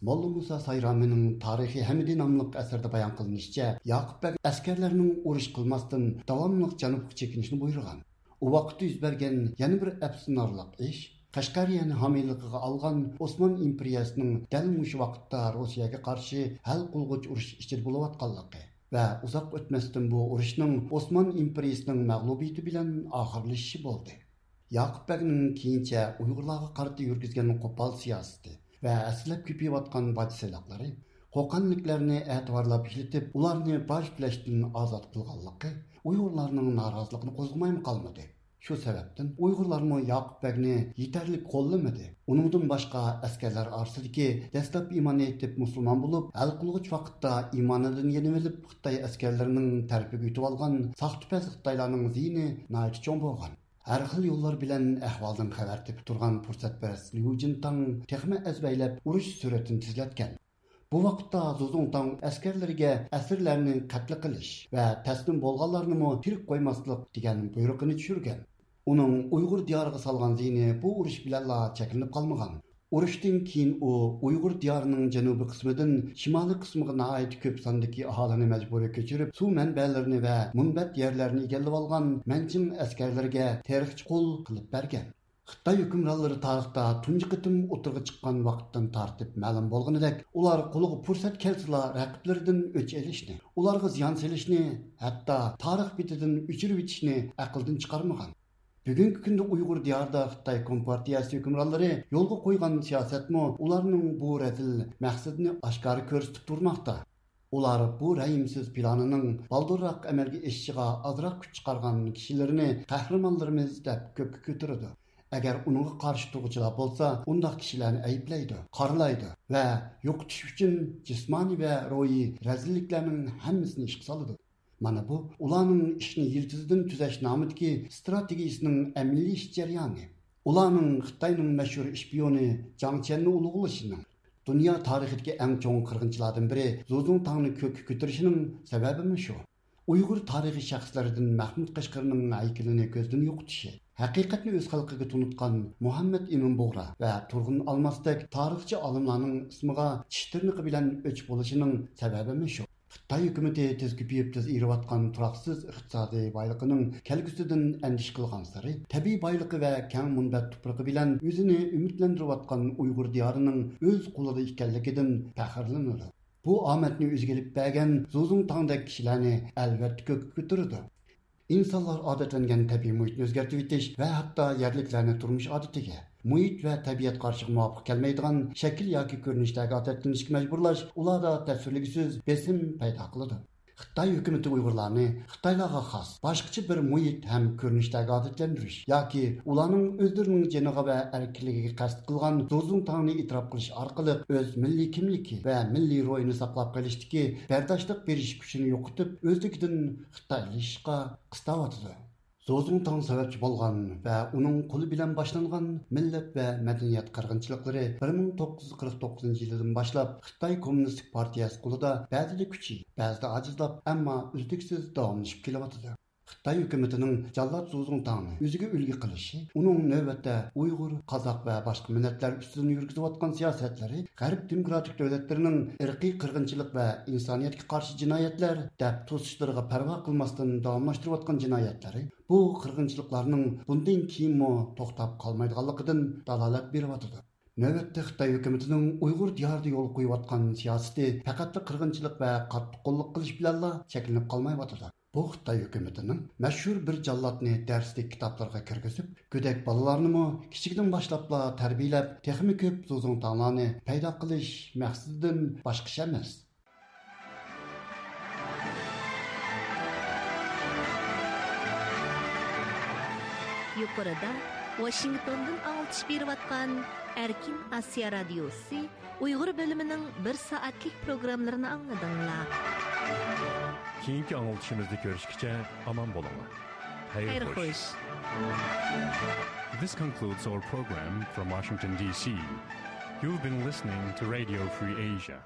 موللا مۇسا سايرامىنىڭ تارىخى ھەمىدى ناملىق ئەسىرىدە بايان قىلىنىشىچە، ياقۇپ بەگ ئەسكەرلەرنىڭ ئۇرۇش قىلماستىن داۋاملىق جەنۇبقا چېكىنىشنى بۇيرۇغان. ئۇ ۋاقىتتا يۈز بەرگەن يەنە بىر ئەپسۇسلىنارلىق ئىش، قەشقەرىيەنى ھامىيلىقىغا ئالغان ئوسمان ئىمپېرىيەسىنىڭ دەل مۇشۇ ۋاقىتتا روسىيەگە قارشى ھەل قىلغۇچ ئۇرۇش ئىچىدە بولۇۋاتقانلىقى ۋە ئۇزاق ئۆتمەستىن بۇ ئۇرۇشنىڭ ئوسمان ئىمپېرىيىسىنىڭ مەغلۇبىيىتى بىلەن ئاخىرلىشىشى بولدى. ياقۇپ بەگنىڭ كېيىنچە ئۇيغۇرلارغا قارىتا يۈرگۈزگەن قوپال سىياسىتى ۋە ھەسسىلەپ كۆپىيىۋاتقان باج سېلىقلىرى، قوقەنلىكلەرنى ئەتىۋارلاپ ئىشلىتىپ، ئۇلارنى باج تۆلەشتىن ئازاد قىلغانلىقى ئۇيغۇرلارنىڭ نارازىلىقىنى قوزغىمايمۇ قالمىدى. شۇ سەۋەبتىن ئۇيغۇرلارمۇ ياقۇپ بەگنى يېتەرلىك قوللىمىدى. ئۇنىڭدىن باشقا، ئەسكەرلەر ئارىسىدىكى دەسلەپ ئىمان ئېيتىپ مۇسۇلمان بولۇپ، ھەل قىلغۇچ ۋاقىتتا ئىمانىدىن يېنىۋېلىپ، خىتاي ئەسكەرلىرىنىڭ تەرىپىگە ئۆتۈۋالغان ساختىپەز خىتايلارنىڭ زىيىنى ناھايىتى چوڭ بولغان. ھەر خىل يوللار بىلەن ئەھۋالدىن خەۋەر تېپىپ تۇرغان پۇرسەتپەرەس ليۇ جىنتاڭ تېخىمۇ ئەزبەيلەپ ئۇرۇش سۈرئىتىنى تېزلەتكەن. بۇ ۋاقىتتا زۇزۇڭتاڭ ئەسكەرلىرىگە ئەسىرلەرنى قەتل قىلىش ۋە تەسلىم بولغانلارنىمۇ تىرىك قويماسلىق دېگەن بۇيرۇقىنى چۈشۈرگەن. ئۇنىڭ ئۇيغۇر دىيارىغا سالغان زىيىنى بۇ ئۇرۇش بىلەنلا چەكلىنىپ قالمىغان. ئۇرۇشتىن كېيىن ئۇ ئۇيغۇر دىيارىنىڭ جەنۇبىي قىسمىدىن شىمالىي قىسمىغا ناھايىتى كۆپ ساندىكى ئاھالىنى مەجبۇرىي كۆچۈرۈپ، سۇ مەنبەلىرىنى ۋە مۇنبەت يەرلەرنى ئىگىلىۋالغان مەنچىڭ ئەسكەرلىرىگە تېرىقچى قۇل قىلىپ بەرگەن. خىتاي ھۆكۈمرانلىرى تارىختا تۇنجى قېتىم ئوتتۇرىغا چىققان ۋاقىتتىن تارتىپ مەلۇم بولغىنىدەك، ئۇلار قولىغا پۇرسەت كەلسىلا رەقىبلىرىدىن ئۆچ ئېلىشنى، ئۇلارغا زىيان سېلىشنى، ھەتتا تارىخ بېتىدىن ئۆچۈرۈۋېتىشنى ئەقىلدىن چىقارمىغان. بۈگۈنكى كۈندە ئۇيغۇر دىيارىدا خىتاي كومپارتىيەسى ھۆكۈمرانلىرى يولغا قويغان سىياسەتمۇ ئۇلارنىڭ بۇ رەزىل مەقسىتىنى ئاشكارا كۆرسىتىپ تۇرماقتا. ئۇلار بۇ رەھىمسىز پىلانىنىڭ بالدۇرراق ئەمەلگە ئېشىشىغا ئازراق كۈچ چىقارغان كىشىلىرىنى قەھرىمانلىرىمىز دەپ كۆككە كۆتۈرىدۇ. ئەگەر ئۇنىڭغا قارشى تۇرغۇچىلار بولسا، ئۇنداق كىشىلەرنى ئەيىبلەيدۇ، قارىلايدۇ ۋە يوقىتىش ئۈچۈن جىسمانىي ۋە روھىي رەزىللىكلەرنىڭ ھەممىسىنى ئىشقا سالىدۇ. مانا بۇ ئۇلارنىڭ ئىشنى يىلتىزىدىن تۈزەش نامىدىكى ئىستراتېگىيىسىنىڭ ئەمەلىيلىشىش جەريانى. ئۇلارنىڭ خىتاينىڭ مەشھۇر ئىشپىيونى جاڭ چيەننى ئۇلۇغلىشىنىڭ، دۇنيا تارىخىدىكى ئەڭ چوڭ قىرغىنچىلاردىن بىرى زۇزۇڭتاڭنى كۆككە كۆتۈرۈشىنىڭ سەۋەبىمۇ شۇ. ئۇيغۇر تارىخىي شەخسلىرىدىن مەھمۇد قەشقىرىنىڭ ھەيكىلىنى كۆزدىن يوقىتىشى، ھەقىقەتنى ئۆز خەلقىگە تونۇتقان مۇھەممەد ئىمىن بۇغرا ۋە تۇرغۇن ئالماستەك تارىخچى ئالىملارنىڭ ئىسمىغا چىش تىرنىقى بىلەن ئۆچ بولۇشىنىڭ سەۋەبىمۇ شۇ. خىتاي ھۆكۈمىتى تېز كۆپىيىپ، تېز ئېرىۋاتقان تۇراقسىز ئىقتىسادىي بايلىقىنىڭ كەلگۈسىدىن ئەندىشە قىلغانسېرى، تەبىئىي بايلىقى ۋە كەڭ مۇنبەت تۇپرىقى بىلەن ئۆزىنى ئۈمىدلەندۈرۈۋاتقان ئۇيغۇر دىيارىنىڭ ئۆز قولىدا ئىكەنلىكىدىن پەخىرلىنىدۇ. بۇ ئامەتنى ئۆزىگە ئېلىپ بەرگەن زۇزۇڭتاڭدەك كىشىلەرنى ئەلۋەتتە كۆككە كۆتۈرىدۇ. ئىنسانلار ئادەتلەنگەن تەبىئىي مۇھىتنى ئۆزگەرتىۋېتىش ۋە ھەتتا يەرلىكلەرنى تۇرمۇش ئادىتىگە، مۇھىت ۋە تەبىئەت قارىشىغا مۇۋاپىق كەلمەيدىغان شەكىل ياكى كۆرۈنۈشلەرگە ئادەتلىنىشكە مەجبۇرلاش ئۇلاردا تەسۋىرلىگۈسىز بېسىم پەيدا قىلىدۇ. خىتاي ھۆكۈمىتى ئۇيغۇرلارنى خىتايلارغا خاس باشقىچە بىر مۇھىت ھەم كۆرۈنۈشلەرگە ئادەتلەندۈرۈش ياكى ئۇلارنىڭ ئۆزلىرىنىڭ جېنىغا ۋە ئەركىنلىكىگە قەست قىلغان زۇزۇڭتاڭنى ئېتىراپ قىلىش ئارقىلىق ئۆز مىللىي كىملىكى ۋە مىللىي روھىنى ساقلاپ قېلىشتىكى بەرداشلىق بېرىش كۈچىنى يوقىتىپ، ئۆزلۈكىدىن خىتايلىشىشقا قىستاۋاتىدۇ. زۇزۇڭتاڭ سەۋەبچى بولغان ۋە ئۇنىڭ قولى بىلەن باشلانغان مىللەت ۋە مەدەنىيەت قىرغىنچىلىقلىرى بىر مىڭ توققۇز يۈز قىرىق توققۇزىنچى يىلىدىن باشلاپ خىتاي كوممۇنىستىك پارتىيەسى قولىدا بەزىدە كۈچىيىپ، بەزىدە ئاجىزلاپ، ئەمما ئۈزلۈكسىز داۋاملىشىپ كېلىۋاتىدۇ. خىتاي ھۆكۈمىتىنىڭ جاللات زۇزۇڭتاڭنى ئۆزىگە ئۈلگە قىلىشى ئۇنىڭ نۆۋەتتە ئۇيغۇر، قازاق ۋە باشقا مىللەتلەر ئۈستىدىن يۈرگۈزۈۋاتقان سىياسەتلىرى، غەرب دېموكراتىك دۆلەتلىرىنىڭ ئىرقىي قىرغىنچىلىق ۋە ئىنسانىيەتكە قارشى جىنايەتلەر دەپ توسۇشلىرىغا پەرۋا قىلماستىن داۋاملاشتۇرۇۋاتقان جىنايەتلىرى بۇ قىرغىنچىلىقلارنىڭ بۇندىن كېيىنمۇ توختاپ قالمايدىغانلىقىدىن دالالەت بېرىۋاتىدۇ. نۆۋەتتە خىتاي ھۆكۈمىتىنىڭ ئۇيغۇر دىيارىدا يولغا قويۇۋاتقان سىياسىتى پەقەتلا قىرغىنچىلىق ۋە قاتتىققوللۇق قىلىش بىلەنلا چەكلىنىپ قالمايۋاتىدۇ. بۇ خىتاي ھۆكۈمىتىنىڭ مەشھۇر بىر جاللاتنى دەرسلىك كىتابلىرىغا كىرگۈزۈپ، گۆدەك بالىلارنىمۇ كىچىكىدىن باشلاپلا تەربىيەلەپ، تېخىمۇ كۆپ زۇزۇڭتاڭلارنى پەيدا قىلىش مەقسىتىدىن باشقا ئىش ئەمەس. يۇقىرىدا ۋاشىنگتوندىن ئاڭلىتىش بېرىۋاتقان ئەركىن ئاسىيا رادىيوسى ئۇيغۇر بۆلۈمىنىڭ بىر سائەتلىك پروگراممىلىرىنى ئاڭلىدىڭلار. كېيىنكى ئاڭلىتىشىمىزدا كۆرۈشكىچە ئامان بولۇڭلار. خەير خوش. This concludes our program from Washington, D C. You've been listening to Radio Free Asia.